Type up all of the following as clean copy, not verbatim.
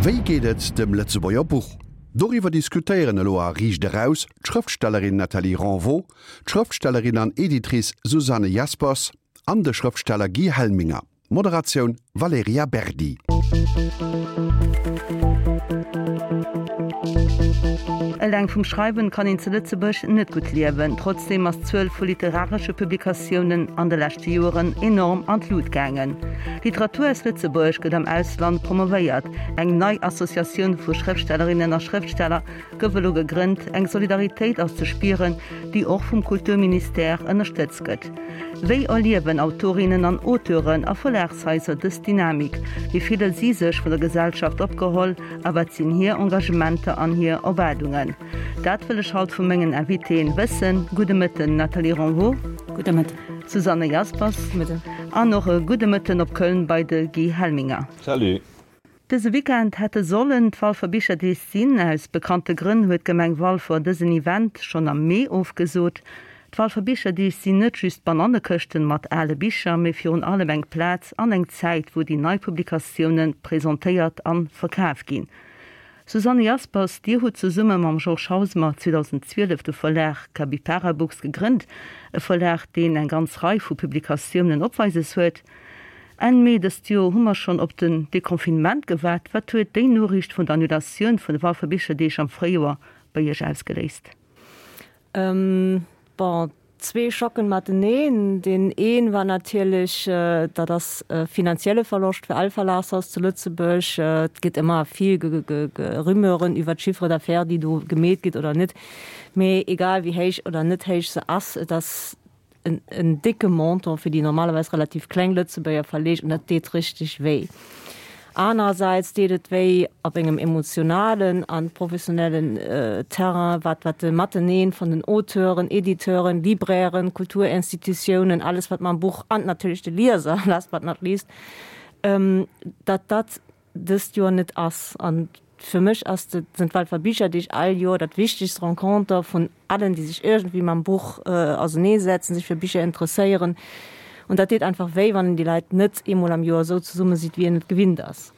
Wéi geet et dem Lëtzebuerger Buch? Doriwwer diskutéieren elo a Riicht Eraus d'Schrëftstellerin Nathalie Renvaux, d'Schrëftstellerin an Editrice Susanne Jaspers an de Schrëftsteller Guy Helminger. Moderatioun Valerija Berdi. Eleng vum Schreiwen kann een zu Lëtzebuerg net gutt liewen. Trotzdeem ass d'Zuel vu literaresche Publikatiounen an de leschte Joeren enorm an d'Lut gaangen. Literatur aus Lëtzebuerg gëtt am Ausland promovéiert, eng nei Associatioun vu Schrëftstellerinnen a Schrëftsteller gouf elo gegrënnt, eng Solidaritéit ass ze spieren, déi och vum Kulturministère ënnerstëtzt gëtt. Wéi erliewen Autorinnen an Auteuren a Verlagshaiser dës Dynamik? Wéi fille si sech vun der Gesellschaft opgeholl a wat sinn hir Engagementer an hir Erwaardungen? Dat wëll ech haut vu mengen Invitéen wëssen. Gudde Mëtten Nathalie Renvaux. Gudde Mëtten. Susanne Jaspers. Mëtten. An och e gudde Mëtten op Köln bei de Guy Helminger. Salut. Dëse Weekend hätte sollen d'Walfer Bicherdeeg sinn. Aus bekannte Grënn huet d'Gemeng Walfer dësen Event schonn am Mee ofgesot. D'Walfer Bicherdeeg sinn net just Banannekëschten mat ale Bicher, mee virun allem eng Plaz an eng Zäit, wou déi nei Publikatioune presentéiert an verkaf ginn. Susanne Jaspers, Dir hutt zesumme mam Georges Hausmer 2012 de Verlag Capypara Books gegrënnt, e Verlag, deen eng ganz Rei vu Publikatiounen opweises huet. Enn Mee dëst Joer hu mer schonn op den Deconfinement gewaart. Wat huet déi Noriicht vun der Annulatioun vun de Walfer Bicherdeeg am Fréijoer bei Iech ausgeléist? Bon, zwee Schocken mateneen. Deen een war natierlech, dat ass e finanzielle Verloscht fir all Verlagshaus zu Lëtzebuerg. Et gëtt ëmmer vill Rumeuren iwwer d'Chiffre d'affaires, déi do gemeet gëtt oder net. Mee egal wéi héich oder net héich se ass, et ass en décke Montant fir déi normalerweis relativ kleng Lëtzebuerger Verleeg, an dat deet richteg wéi. Anerersäits deet et wéi op engem emotionalen a professionellen Terrain, wat wat de Mateneen vun den Auteuren, Editeuren, Librairen, Kulturinstitutiounen, alles wat mam Buch, an natierlech de Lieser, last but not least, datt dat dëst Joer net ass. An fir mech ass de, sinn d'Walfer Bicherdeeg all Joer dat wichtegst Renconter vun allen, déi sech iergendwéi mam Buch auserneesetzen, sech fir Bicher interesséieren. An dat deet einfach wéi, wann een déi Leit net eemol am Joer esou zesumme sidd, wéi een et gewinnt ass.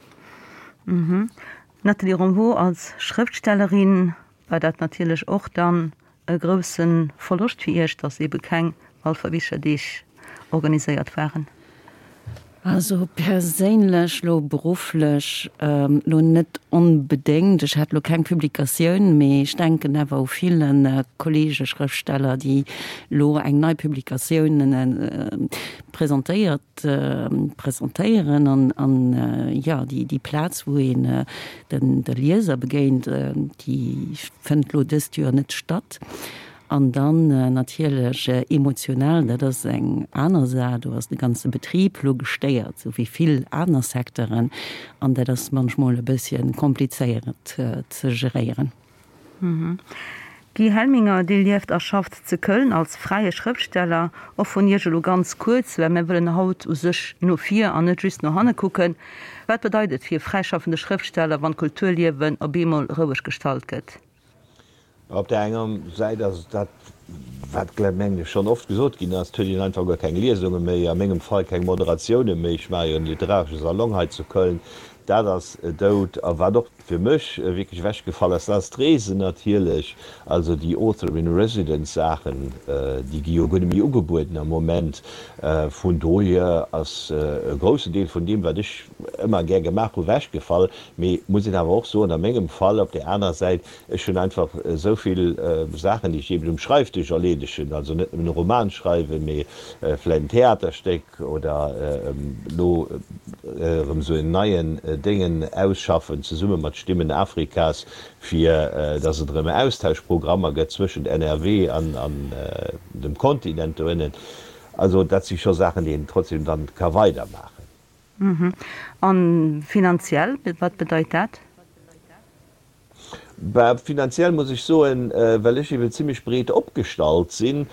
Nathalie Ronvaux, Als Schrëftstellerin war dat natierlech och dann E grousse Verloscht fir Iech, datt ebe keng Walfer Bicherdeeg organiséiert waren? Also perséinlech, lo berufflech lo net onbedéngt. Ech hat lo keng Publikatioun, mee ech denken awer u ville Kollege Schrëftsteller, déi lo eng nei Publikatioun presentéiert, presentéieren an an jo déi déi Plaz wou een den de Lieser begéint, déi fënnt lo dëst Joer net statt. An dann natierlech emotional, dat ass eng aner Saach, do ass de ganze Betrib lo gestéiert, sou wéi vill aner Secteuren an dat ass munchmol e bësschen komplizéiert ze geréieren. Guy Helminger, Dir lieft a schafft ze Köln als fräie Schrëftsteller. Och vun Iech elo ganz kuerz, well mir wëllen haut u sech no vir an net just no hanne kucken. Wat bedeit et fir e fräischaffende Schrëftsteller, wann d'Kulturliewen op eemol roueg gestallt gëtt? Op där enger Säit ass et dat, wat, mengen ech, schonn oft gesot ginn ass, et huet een einfach guer keng Liesunge méi, a mengem Fall keng Moderatioune méi. Ech maache jo en literaresche Salon hei zu Köln, dat ass dout. A wat och fir mech wierklech ewechgefall ass, dat ass d'Reesen natierlech. Also déi Author in Residence Saachen, déi gi jo guer net méi ugebueden am Moment. Vun dohier ass e groussen Deel vun deem, wat ech ëmmer gär gemaach hu, ewechgefall. Mee muss een awer och soen, a mengem Fall op där aner Säit, Ech hunn einfach esou vill Saachen, déi ech eben um Schreifdësch erleedegen, also net nëmmen e Roman schreiwen, mee vläicht en Theaterstéck oder elo erëm esou en neien Déngen ausschaffen, zesumme mat Stimmen Afrikas, fir datt et erëm Austauschprogrammer gëtt zwëschent NRW an dem Kontinent doënnen. Also dat si scho Saachen, déi een trotzdem dann ka weidermaachen. A finanziell, wat bedeit dat? Bah, finanziell muss ech soen, well ech eben zimlech breet opgestallt sinn.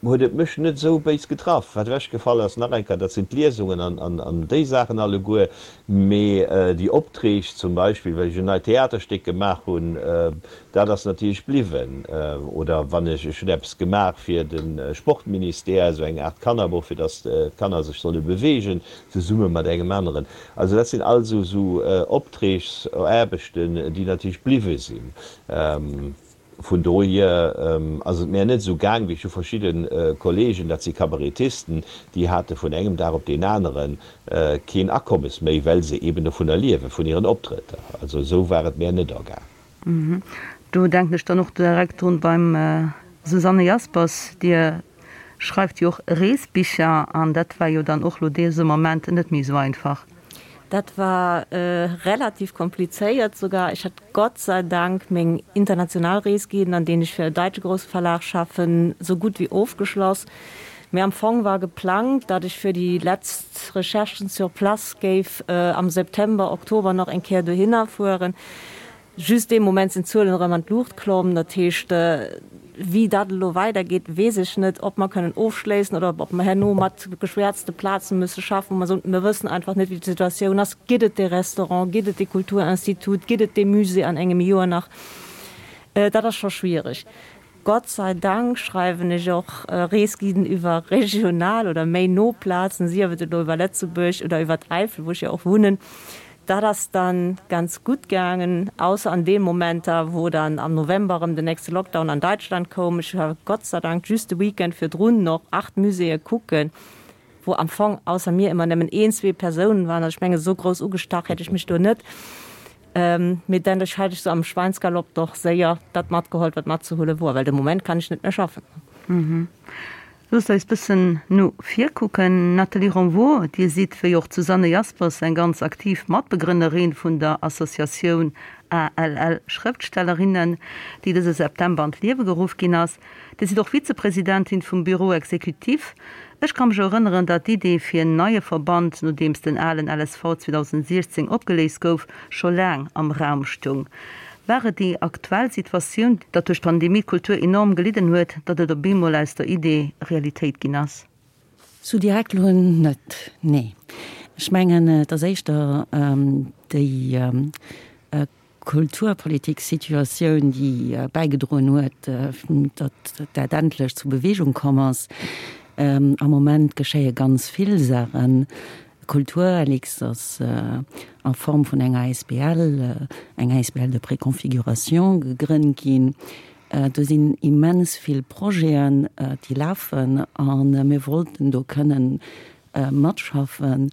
Huet et mech net esou béis getraff. Wat ewechgefall ass, nach eng Kéier, dat sinn d'Liesungen an déi Saachen alleguer. Mee déi Optreeg zum Beispill, well ech en neit Theaterstéck gemaach hunn, dat ass natierlech bliwwen. Oder wann ech, ech hunn eppes gemaach fir de Sportministère, esou eng Aart Kannerbuch, fir datt d'Kanner sech solle beweegen, zesumme mat engem aneren. Also dat sinn all esou Optreegsaarbechten, déi natierlech bliwwe sinn. Vun dohier ass et mär net esou gaang wéi ech hu verschidde Kollegen, dat si Kabarettisten, déi hate vun engem Dag op deen anere keen Akommes méi, well se eben dovunner liewen, vun hiren Optrëtter. Also esou war et mär net ergaang. Do denken ech dann och direkt drun beim Susanne Jaspers, Dir schreift jo och Reesbicher an dat war jo dann och lo dese Moment net méi esou einfach. Dat war relativ komplizéiert sougar. Ech hat Gott sei Dank meng international Reesguiden, an deenen ech fir e daitsche grousse Verlag schaffen, sou gutt wéi ofgeschloss. Mee am Fong war geplangt, datt ech fir déi letzt Recherchen sur place géif am September, Oktober nach eng Kéier dohinner fueren. Just dee Moment sinn d'Zuelen erëm an d'Luucht klomm. Dat heescht, wéi dat elo weidergeet, weess ech net, ob mer kënnen ofschléissen oder ob mer herno mat geschwäerzte Plaze musse schaffen, wou mer soen, mir wëssen einfach net, wéi d'Situatioun ass. Gëtt et dee Restaurant, gëtt et dee Kulturinstitut, gëtt et dee Musée an engem Joer nach? Dat ass scho schwiereg. Gott sei Dank schreiwen ech och Reesguiden iwwer regional oder méi no Plazen, sief et elo iwwer Lëtzebuerg oder iwwer d'Äifel, wou ech jo och wunnen. Dat ass dann ganz gutt gaangen, ausser an deem Momenter, wou dann am November erëm den nächste Lockdown an Deutschland koum. Ech war Gott sei Dank just de Weekend virdrun noch 8 Muséeë kucken, wou am Fong ausser mir ëmmer nëmmen een, zwee Persounen waren. Also ech mengen, esou grouss ugestach hätt ech mech do net. Mee dann hat ech sou am Schweinsgalopp doch séier dat matgeholl, wat matzehuele wor, well de Moment kann ech net méi schaffen. Loosst eis bëssen no vir kucken. Nathalie Renvaux, Dir sidd, wéi och d'Susanne Jaspers, eng ganz aktiv Matbegrënnerin vun der Associatioun ALL Schrëftstellerinnen, déi dëse September an d'Liewe geruff ginn ass. Dir sidd och Vizepresidentin vum Bureau exécutif. Ech ka mech erënneren, datt d'Idee fir en neie Verband, nodeems den alen LSV 2016 opgeléist gouf, scho laang am Raum stoung. War et déi aktuell Situatioun, datt duerch d'Pandemie d'Kultur enorm gelidden huet, datt et op eemol aus der Idee Realitéit ginn ass? Sou direkt elo net, nee. Ech mengen, et ass éischter déi Kulturpolitik-Situatioun, déi bäigedroen huet, datt dat endlech zu Beweegung komm ass. Am Moment geschéie ganz vill Saachen. Kulturlux ass a Form vun enger asbl, eng asbl de préconfiguration, gegrënnt ginn. Do sinn immens vill Projeten, déi lafen a mir wollten do kënnen matschaffen,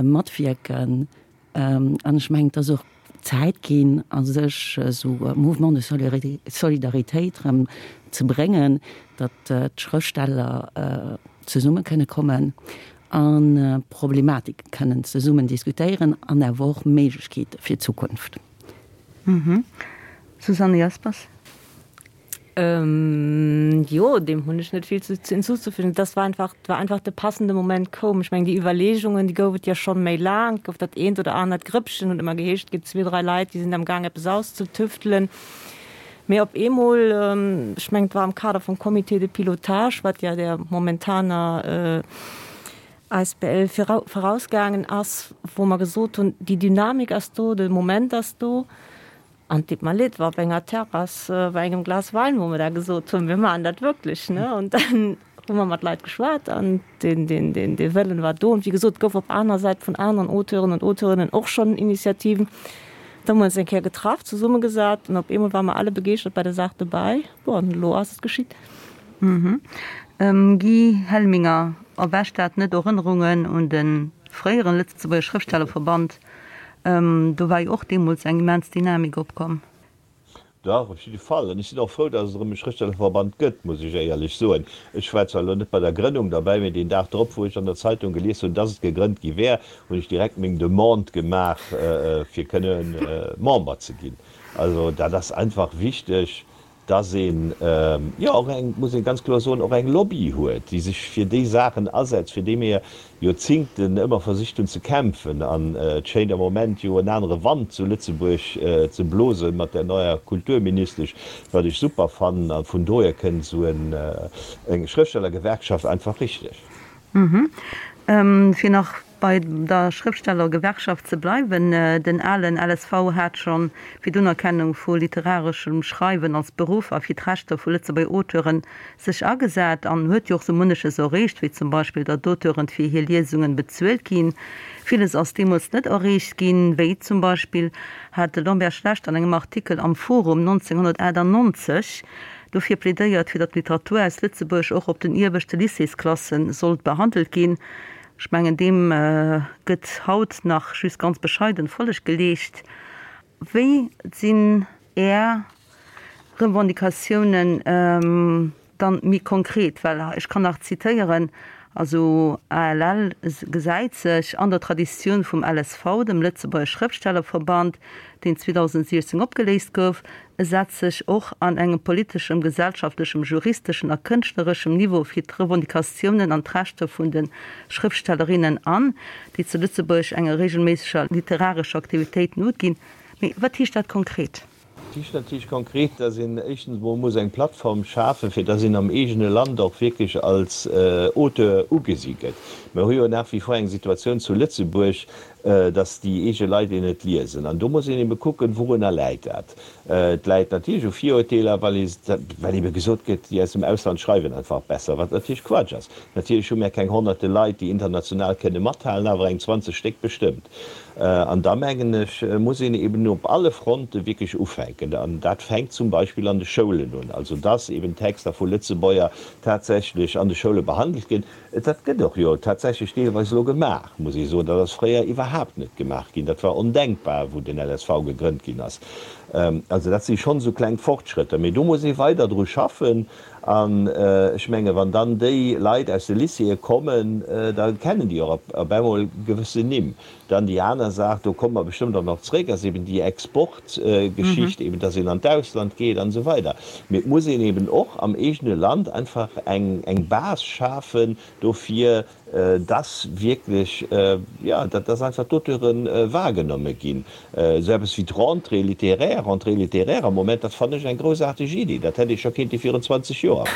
matwierken. An ech mengen, et ass och Zäit ginn, a sech esou e Mouvement de solidaritéit erëm ze bréngen, datt d'Schrëftsteller zesumme kënne kommen a Problematike kënnen zesummen diskutéieren an awer och Méiglechkeete fir d'Zukunft. Susanne Jaspers. Jo, deem hunn ech net vill hinzuzufügen. Das war einfach, war einfach de passende Moment koum. Ech mengen, déi Iwwerleegungen, déi gouf et jo schonn méi laang. Et gouf dat eent oder anert Grëppchen, huet ëmmer geheescht, et gëtt zwee, dräi Leit, déi sinn am Gaang eppes auszutüftelen. Mee op eemol, ech mengen, et war am Kader vum Comité de pilotage, wat ja der momentaner asbl virausgaangen ass, wou mer gesot hunn, déi Dynamik ass do, de Moment ass do. An et deet mer leed, war op enger Terrass bei engem Glas Wäin, wou mer da gesot hunn, mir maachen dat wierklech, ne. An dann hu mer mat Leit geschwat an deen, deen, deen, dee Wëllen war do. An wéi gesot, et gouf op aner Säit vun aneren Auteuren und Auteurinnen och schonn Initiativen. Da hu mer ons eng Kéier getraff, zesummegesat an op eemol ware mer alle begeeschtert bei der Saach dobäi. Bon, an elo ass et geschitt. Guy Helminger, Erwächt dat net Erënnerungen un de fréieren Lëtzebuerger Schrëftstellerverband? Do war jo och deemools eng immens Dynamik opkomm. Dach, op jidde Fall. An ech sinn och frou, datt et erëm e Schrëftstellerverband gëtt, muss ech éierlech soen. Ech war zwar elo net bei der Grënnung derbäi, mee deen Dag drop, wou ech an der Zeitung gelies hunn, datt et gegrënnt gi wär, hunn ech direkt meng Demande gemaach, fir kënne Member ze ginn. Also dat ass einfach wichteg. Dass een, jo, och eng, muss ee ganz kloer soen, och eng Lobby huet, déi sech fir déi Saachen asetzt, fir déi mir Joerzingten ëmmer versicht hunn ze kämpfen. An et schéint am Moment jo en anere Wand zu Lëtzebuerg ze blosen mat där neier Kulturministesch, wat ech super fannen. A vun dohier kënnt esou eng Schrëftstellergewerkschaft einfach richteg. Fir nach Bei der Schrëftstellergewerkschaft ze bleiwen, den alen LSV hat scho fir d'Unerkennung vu literareschem Schreiwen als Beruff a fir d'Rechter vu Lëtzebuerger Auteuren sech agesat an huet jo och sou munneches erreecht, wéi zum Beispill datt d'Auteuren fir hir Liesungen bezuelt ginn. Villes ass deemools net erreecht ginn, wéi zum Beispill hat de Lambert Schlecht an engem Artikel am Forum 1998 dofir plädéiert, fir datt d'Literatur aus Lëtzebuerg och op den ieweschte Lycéesklasse sollt behandelt ginn. Ech mengen, deem gëtt haut nach just ganz bescheiden Folleg geleescht. Wéi sinn Är Revendicatiounen dann méi konkret? Well ech kann nach zitéieren, also ALL gesäit sech an der Traditioun vum LSV, dem Lëtzebuerger Schrëftstellerverband, deen 2016 opgeléist gouf, E setzt sech och an engem politeschem, gesellschaftlechem, juristeschen a kënschtlereschem Niveau fir d'Revendicatiounen an d'Rechter vun de Schrëftstellerinnen an, déi zu Lëtzebuerg enger reegelméisseger literarescher Aktivitéit noginn. Mee wat heescht dat konkret? Dat heescht natierlech konkret, dass een éischtens emol muss eng Plattform schafen, fir dass een am eegene Land och wierklech als Auteur ugesi gëtt. Mir hu jo nach wie vor eng Situatioun zu Lëtzebuerg, dass déi eege Leit een net liesen. An do muss een ebe kucken, wourunner läit dat. Et läit natierlech u Virurteeler, well ee, well ebe gesot gëtt, déi aus dem Ausland schreiwen einfach besser, wat natierlech Quatsch ass. Natierlech hu mär keng honnerte Leit, déi international kënne mathalen, awer eng 20 Stéck bestëmmt. An da mengen ech, muss een eben op alle Fronte wierklech ufänken. An dat fänkt zum Beispill an de Schoulen un, also dass eben Texter vu Lëtzebuerger tatsächlech an de Schoule behandelt ginn. Dat gëtt och jo tatsächlech deelweis elo gemaach, muss ee soen. Dat ass fréier iwwerhaapt net gemaach ginn. Dat war ondenkbar, wou den LSV gegrënnt ginn ass. Also dat si schonn esou kleng Fortschrëtter. Mee do muss ee weider dru schaffen. An ech menge wann dann déi Leit aus de Lycéeë kommen, da kennen déi och op eemol gewëssen Nimm. Dann déi aner Saach, do komme mer bestëmmt och nach zréck, ass eben déi Exportgeschicht, eben dass een an d'Ausland geet an esou weider. Mee et muss een eben och am eegene Land einfach eng eng Base schafen dofir, dass wierklech, jo, dass einfach d'Auteure wahrgenomme ginn. Esou eppes wéi d'Rentrée littéraire, Rentrée littéraire am Moment, dat fannen ech eng groussaarteg Iddi. Dat hätt ee scho kéinte virun 20 Joer.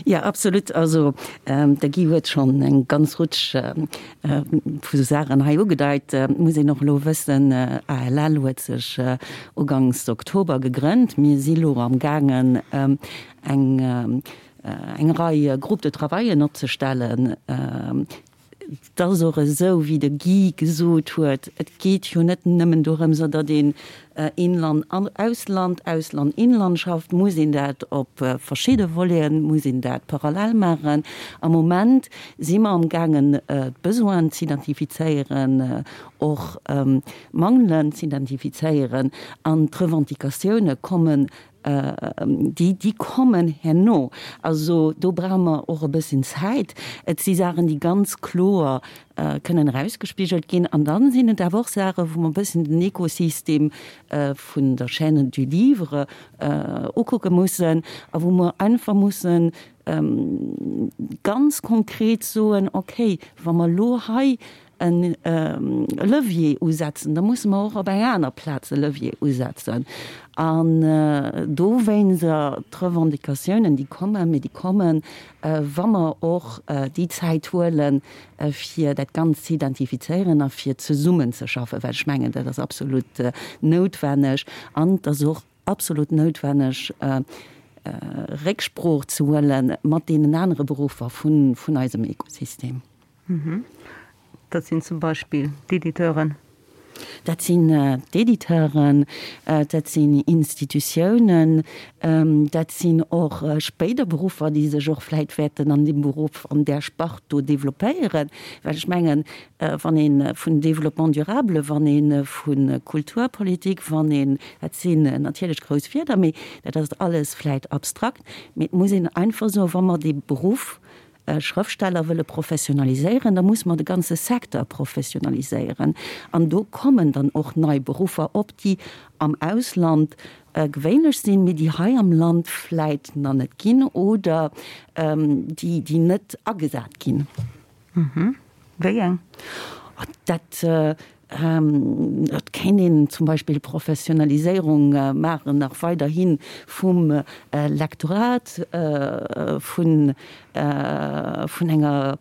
Jo, absolut. Also de Guy huet schonn eng ganz Rutsch vu Saachen hei ugedeit. Et muss een och elo wëssen, ALL huet sech ugangs Oktober gegrënnt. Mir si lo amgaangen eng eng Rei Groupes de travaillen opzestellen. Et ass och esou, wéi de Guy gesot huet, et geet jo net nëmmen dorëms, datt een Inland, Ausland, Ausland, Inland schafft, muss een dat op verschidde Voleten, muss een dat parallel maachen. Am Moment si mer amgaangen, d'Besoinen z'identifizéieren, och d'Mangelen z'identifizéieren an d'Revendicatioune kommen Déi, déi kommen herno. Also do brauche mer och e bësschen Zäit. Et si Saachen, déi ganz kloer kënnen erausgespigelt ginn. An dann sinn et awer och Saachen, wou mer e bësschen den Ekosystem vun der Chaîne du livre ukucke mussen a wou mer einfach mussen ganz konkret soen, okay, wa mer elo hei e Levier usetzen, da musse mer och op eng aner Plaz e Levier usetzen. An dowéinster d'Revendicatiounen, déi kommen, mee déi kommen, wa mer och déi Zäit huelen, fir dat Ganzt ze identifizéieren a fir zesummenzeschaffen, well ech mengen, dat ass absolut noutwenneg an et ass och absolut noutwenneg, Récksprooch ze huele mat deenen anere Beruffer vun eisem Ekosystem. Dat sinn zum Beispill d'Editeuren. Dat sinn d'Editeuren, dat sinn Institutiounen, dat sinn och spéider Beruffer, déi sech och vläit wäerten an deem Beruff, an där Spart do developpéieren. Well ech mengen, wann ee vun Développement durable, wann ee vu Kulturpolitik, wann een, dat sinn natierlech grouss Wierder, mee dat ass alles vläit abstrakt, mee et muss een einfach soen, wa mer dee Beruff. Schrëftsteller wëlle professionaliséieren, da musse mer de ganze Secteur professionaliséieren. An do kommen dann och nei Beruffer op, déi am Ausland gewéinlech sinn, mee déi hei am Land vläit nach net ginn oder déi, déi net agesat ginn. Wéi eng? Dat, et kéint een zum Beispill Professionaliséierung maachen, nach weiderhi vum Lektorat, vun, vun enger.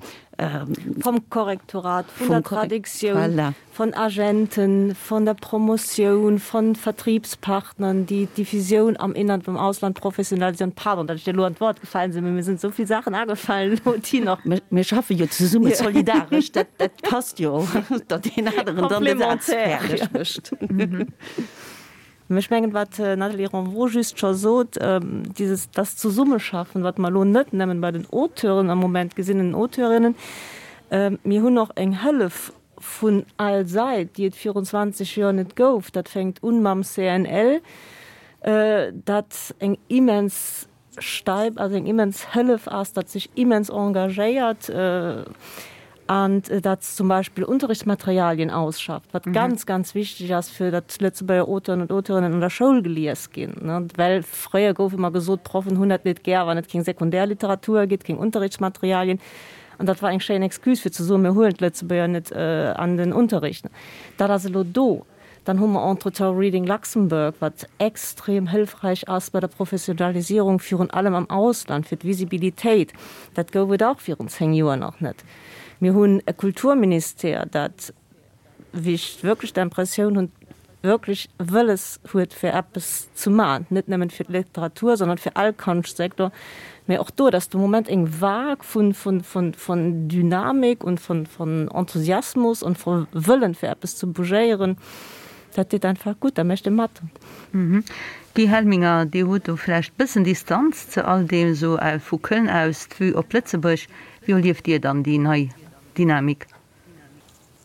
Vum Korrektorat, vun der Traduktioun. Von Agenten, von der Promotioun, von Vertriebspartnern, déi d'Diffusioun am Inland, am Ausland professionalisieren. Pardon, datt ech dir elo an d'Wort gefalen sinn, mee mir sinn esou vill Saachen agefallen elo, déi nach. Mir schaffe jo zesumme solidaresch, dat, dat passt jo, datt deen aneren dann de Saz fäerdeg mécht. Mä ech mengen, wat d'Nathalie Renvaux just scho sot, dieses, das Zusammenschaffen, wat mer elo net nëmmen bei den Auteuren am Moment gesinn, den Auteurinnen, mir hunn och eng Hëllef vun all Sait, déi et virun 20 Joer net gouf. Dat fänkt un mam CNL, dat eng immens Stäip ass, eng immens Hëllef ass, dat sech immens engagéiert an dat zum Beispill Unterrichtsmaterialien ausschafft, wat ganz, ganz wichteg ass, fir datt Lëtzebuerger Auteuren und Auteurinnen an der Schoul gelies ginn. Well fréier gouf ëmmer gesot, d'Proffen hunn dat net gär, wann et keng Sekundärliteratur gétt, keng Unterrichtsmaterialien. An dat war eng schéin Excuse fir ze soen, mir huelen d'Lëtzebuerger net an den Unterricht. Dat ass elo do. Dann hu mer entretemps Reading Luxembourg, wat extrem hëlfreich ass bei der Professionalisierung, virun allem am Ausland, fir d'Visibilitéit. Dat gouf et och virun 10 Joer nach net. Mir hunn e Kulturministère, dat, wéi ech wierklech d'Impressioun hunn, wierklech wëlles huet fir eppes ze man, net nëmmen fir d'Literatur, sondern fir all Konschtsektor, mä och do, dass de Moment eng Vague vun, vun, vun, vun Dynamik und von, von Enthusiasmus und von Wëllen fir eppes ze bougéieren, dat deet einfach gutt, da mécht ee mat. Guy Helminger, Dir hutt do vläicht bëssen Distanz ze all deem, esou vu Köln aus d'Vue op Lëtzebuerg. Wéi erlieft Dir dann déi nei Dynamik?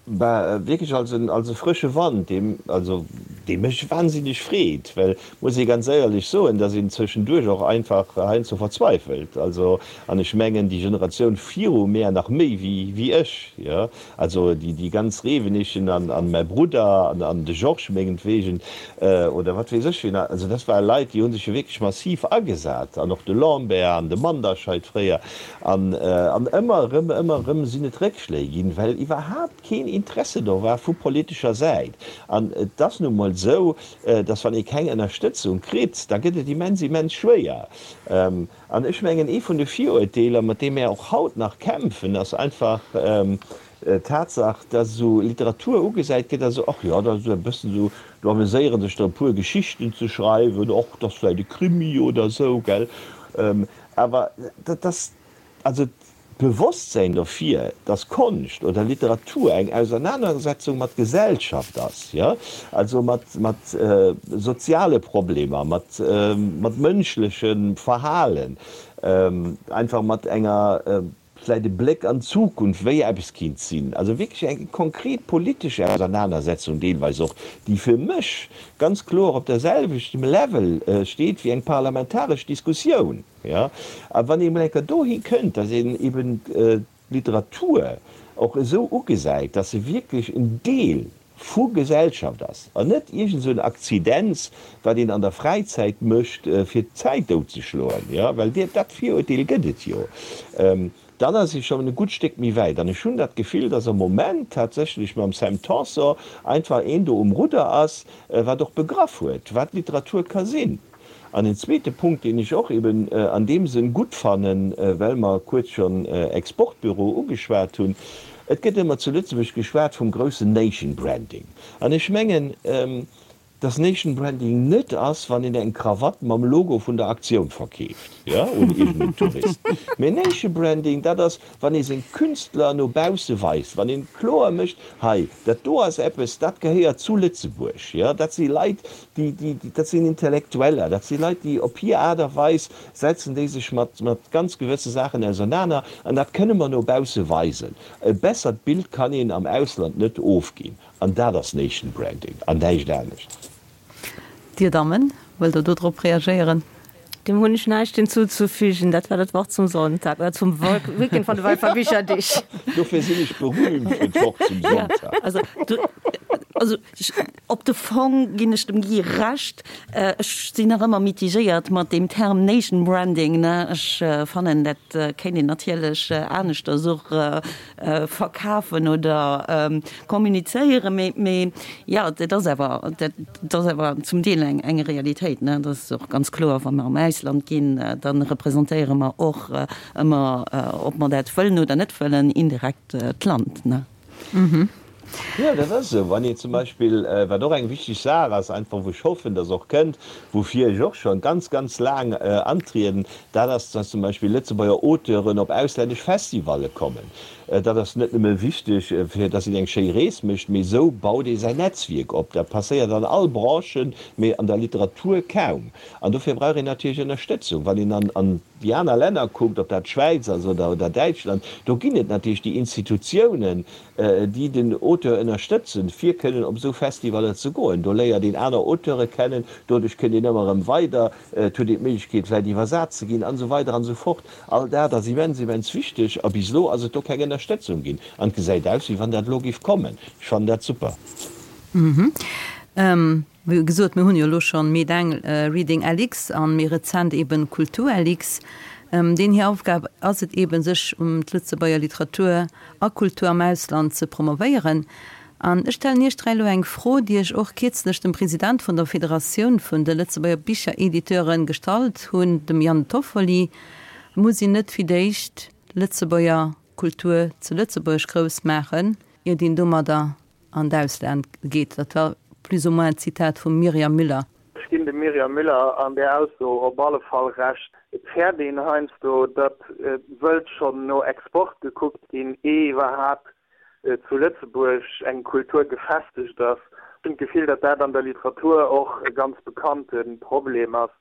Bah, wierklech als en, als e frësche Wand, dee, also dee mech wahnsinneg freet, well, muss ee ganz éierlech soen, dass een zwëschenduerch och einfach heiansdo verzweifelt. Also, an ech mengen, déi Generatioun viru mär nach méi wéi, wéi ech, jo, also déi, déi ganz Rewenig an, an mäi Brudder an, an de Georges mengetwegen oder wat weess ech wien, also dat ware Leit, déi hu sech jo wierklech massiv agesat, an och de Lambert an de Manderscheid fréier. An ëmmer erëm, ëmmer erëm sinn et Réckschléi ginn, well iwwerhaapt keen Interesse do war vu politescher Säit. An et ass nu mol esou, datt wann ee keng Ënnerstëtzung kritt, da gëtt et immens, immens schwéier. An ech mengen, ee vun de Viruerteeler, mat deem mär och haut nach kämpfen, ass einfach d'Tatsach, datt esou Literatur ugesäit gëtt als esou, ach jo, dat ass esou e bëssen esou, do ameséiere sech der e puer Geschichten ze schreiwen, och dat ass vläicht e Krimi oder esou, gell. Awer dat ass, also d'Bewosstsäin dofir, dass Konscht oder Literatur eng Ausernanersetzung mat Gesellschaft ass, jo, also mat, mat soziale Problemer, mat, mat mënschlechem Verhalen, einfach mat enger, vläicht e Bléck an d'Zukunft, wéi eppes kinnt sinn, also wierklech eng konkret politesch Ausernanersetzung deelweis och, déi fir mech ganz kloer op der selwechtem Level steet wéi eng parlamentaresch Diskussioun. Jo, a wann ee mol eng Kéier dohi kënnt, datt een eben d'Literatur och esou ugesäit, datt se wierklech en Deel vu Gesellschaft ass an net iergend esou en Akzidenz, wat een an der Fräizäit mécht, fir d'Zäit doutzeschloen, jo, well dat Virurteel gëtt et jo, dann ass ee schonn e gutt Stéck méi wäit. An ech hunn dat Gefill, dass am Moment tatsächlech mam Sam Tanson einfach een do um Rudder ass, wat och begraff huet, wat Literatur ka sinn. An en zweete Punkt, deen ech och eben an deem Sënn gutt fannen, well mer kuerz schonn Exportbüro ugeschwat hunn, Et gëtt ëmmer zu Lëtzebuerg geschwat vum groussen Nation Branding. An ech mengen, dass Nation Branding net ass, wann een eng Krawatt mam Logo vun der Aktioun verkeeft, jo, un iergendeen Tourist. Mee Nation Branding, dat ass, wann ee seng Künstler no bausse weist, wann ee kloer mécht, hei, dat do ass eppes, dat gehéiert zu Lëtzebuerg, jo, dat si Leit, déi, déi, dat sinn Intellektueller, dat si Leit, déi op hir Aart a Weis setzen déi sech mat, mat ganz gewësse Saachen ausernaner an dat kënne mer no bausse weisen. E bessert Bild kann een am Ausland net ofginn. An dat ass Nation Branding an näischt anescht. Dir Dammen, wëllt Der do drop reagéieren? Dem hunn ech näischt hinzuzufügen. Dat war dat Wort zum Sonntag oder zum Weekend van de Walfer Bicherdeeg. Dofir sinn ech berühmt fir d'Wort zum Sonntag. Also, also op de Fong ginn ech dem Guy Recht. Ech sinn nach ëmmer mitigéiert mat deem Term Nation Branding, ne. Ech fannen, dat kéint een natierlech aneschters och verkafen oder kommunizéieren, mee, mee jo, dat ass awer, dat ass awer zum Deel eng, eng Realitéit, ne. Dat ass och ganz kloer, wa mer am Ausland ginn, da representéiere mer och ëmmer, ob mer dat wëllen oder net wëllen, indirekt d'Land, ne. Jo, dat ass esou. Wann een zum Beispill, wat och eng wichteg Saach ass, einfach wou ech hoffen, dass och kënnt, woufir ech och scho ganz, ganz laang antrieden, dat ass, dass zum Beispill Lëtzebuerger Auteuren op auslännesch Festivalle kommen. Dat ass net nëmme wichteg, fir dass een eng schéi Rees mécht, mee esou baut ee säin Netzwierk op. Dat passéiert an all Branchen, mee an der Literatur kaum. An dofir brauch een natierlech Ënnerstëtzung. Wann een an déi aner Länner kuckt, ob dat d'Schwäiz ass oder Däitschland, do ginn et natierlech déi Institutiounen, déi den Auteur ënnerstëtzen, fir kënnen op esou Festivaller ze goen. Do léiert een aner Auteure kennen, doduerch kënnt een ëmmer erëm weider, et huet een d'Méiglechkeet vläicht iwwersat ze ginn, an esou weider an esou fort. All dat ass immens, immens wichteg a bis elo ass et do keng Ënnerstëtzung ginn. An et gesäit aus, wéi wann dat elo géif kommen. Ech fannen dat super. Wéi gesot, mir hunn jo elo schonn Meet Reading LX an méi rezent eben Kultur LX. Deen hir Aufgab ass et eben, sech um d'Lëtzebuerger Literatur a Kultur am Ausland ze promovéieren. An ech stellen Iech 3 elo eng Fro, déi ech och kierzlech dem President vun der Federatioun vun de Lëtzebuerger Bicherediteuren gestallt hunn, dem Yann Toffoli, Muss een net fir d'éischt d'Lëtzebuerger Kultur zu Lëtzebuerg grouss maachen, iert een domadder an d'Ausland geet? Dat war plus ou moins d'Zitat vum Myriam Müller. Ech ginn dem Myriam Müller an där Ausso op alle Fall Recht. Et fäert een heiansdo, datt wëllt schonn no Export gekuckt ginn, ee iwwerhaapt zu Lëtzebuerg eng Kultur gefestegt ass. Ech hunn d'Gefill, datt dat an der Literatur och e ganz bekannte Problem ass.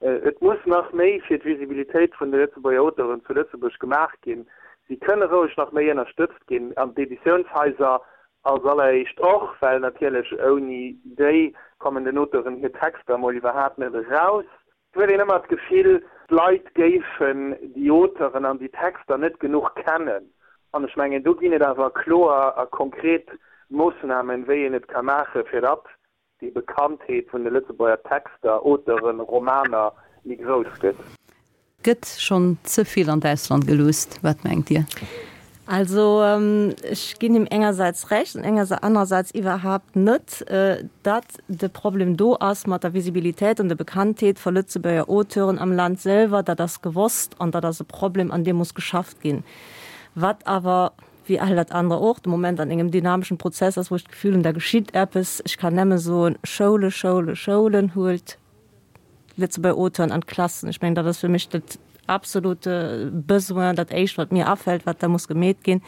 Et muss nach méi fir d'Visibilitéit vun de Lëtzebuerger Auteuren zu Lëtzebuerg gemaach ginn. Si kënne roueg nach méi ënnerstëtzt ginn, an d'Editiounshaiser als alleréischt och, well natierlech ouni déi kommen den Auteuren hir Texter emol iwwerhaapt net eraus. Et huet een ëmmer d'Gefill, d'Leit géifen déi Auteuren an déi Texter net genuch kennen. An ech mengen, do ginn et awer kloer a konkret Moossnamen, wéi een et ka maachen, fir datt déi Bekanntheet vun de Lëtzebuerger Texter, Auteuren, Romaner méi grouss gëtt. Gëtt schonn ze vill an d'Ausland geluusst? Wat mengt Dir? Also ech ginn him engersäits Recht an anerersäits iwwerhaapt net, datt de Problem do ass mat der Visibilitéit an der Bekanntheet vu Lëtzebuerger Auteuren am Land selwer. Dat ass gewosst an dat ass e Problem, an deem muss geschafft ginn. Wat awer, wéi all dat anere och, de Moment an engem dynameschen Prozess ass, wou ech d'Gefill hunn, da geschitt eppes. Ech kann nämme soen, Schoule, Schoule, Schoulen, huelt Lëtzebuerger Auteuren an d'Klassen. Ech mengen, dat ass fir mech dat absolute Besoin, dat Éischt, wat mir afält, wat da muss gemeet ginn.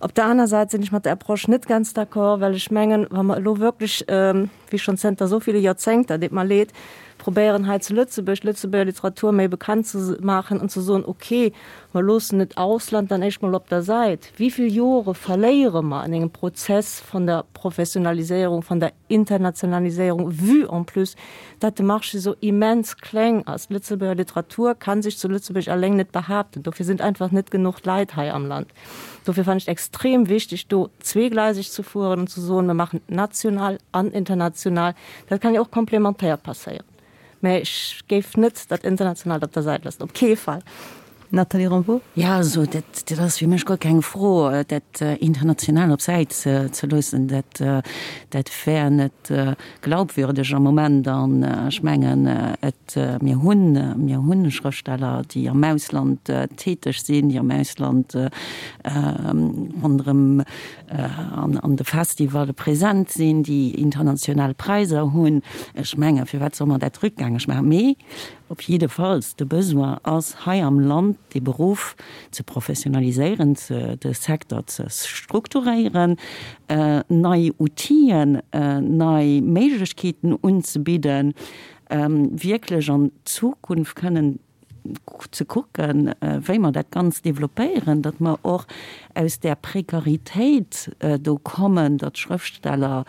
Op der aner Säit sinn ech mat der Approche net ganz d'accord, well ech mengen, wa mer elo wierklech, wéi schonn zënter esou ville Joerzéngter, deet mer leed, probéieren hei zu Lëtzebuerg d'Lëtzebuerger Literatur méi bekannt ze maachen an ze soen, okay, mer loossen et Ausland dann éischt mol op der Säit, wéi vill Jore verléiere mer an engem Prozess vun der Professionaliséierung, vun der Internationaliséierung, vue en plus, datt de Marché esou immens kleng ass. D'Lëtzebuerger Literatur kann sech zu Lëtzebuerg alleng net behaapten. Dofir sinn einfach net genuch Leit hei am Land. Dofir fannen ech et extrem wichteg, do zweegleiseg ze fueren an ze soen, mer maachen national an international. Dat kann jo och komplementär passéieren. Mä ech géif net dat Internationaalt op der Säit loossen, op kee Fall. Nathalie Rambaud. Jo, also dat, dat ass fir mech guer keng Fro, dat International op Säit ze loossen. Dat, dat wär net glaubwürdeg am Moment. An ech mengen, et, mir hunn, mir hunn Schrëftsteller, déi am Ausland täteg sinn, déi am Ausland ronderëm an de Festivalle present sinn, déi international Präiser hunn. Ech mengen, firwat soll mer dat rückgängeg maachen? Mee op jiddefalls, de Besoin ass hei am Land, dee Beruff ze professionaliséieren, de Secteur ze strukturéieren, nei Outiller, nei Méiglechkeeten unzebidden, wierklech an d'Zukunft kënnen ze kucken, wéi mer dat Ganzt développéieren, datt mer och aus där Prekaritéit do kommen, datt Schrëftsteller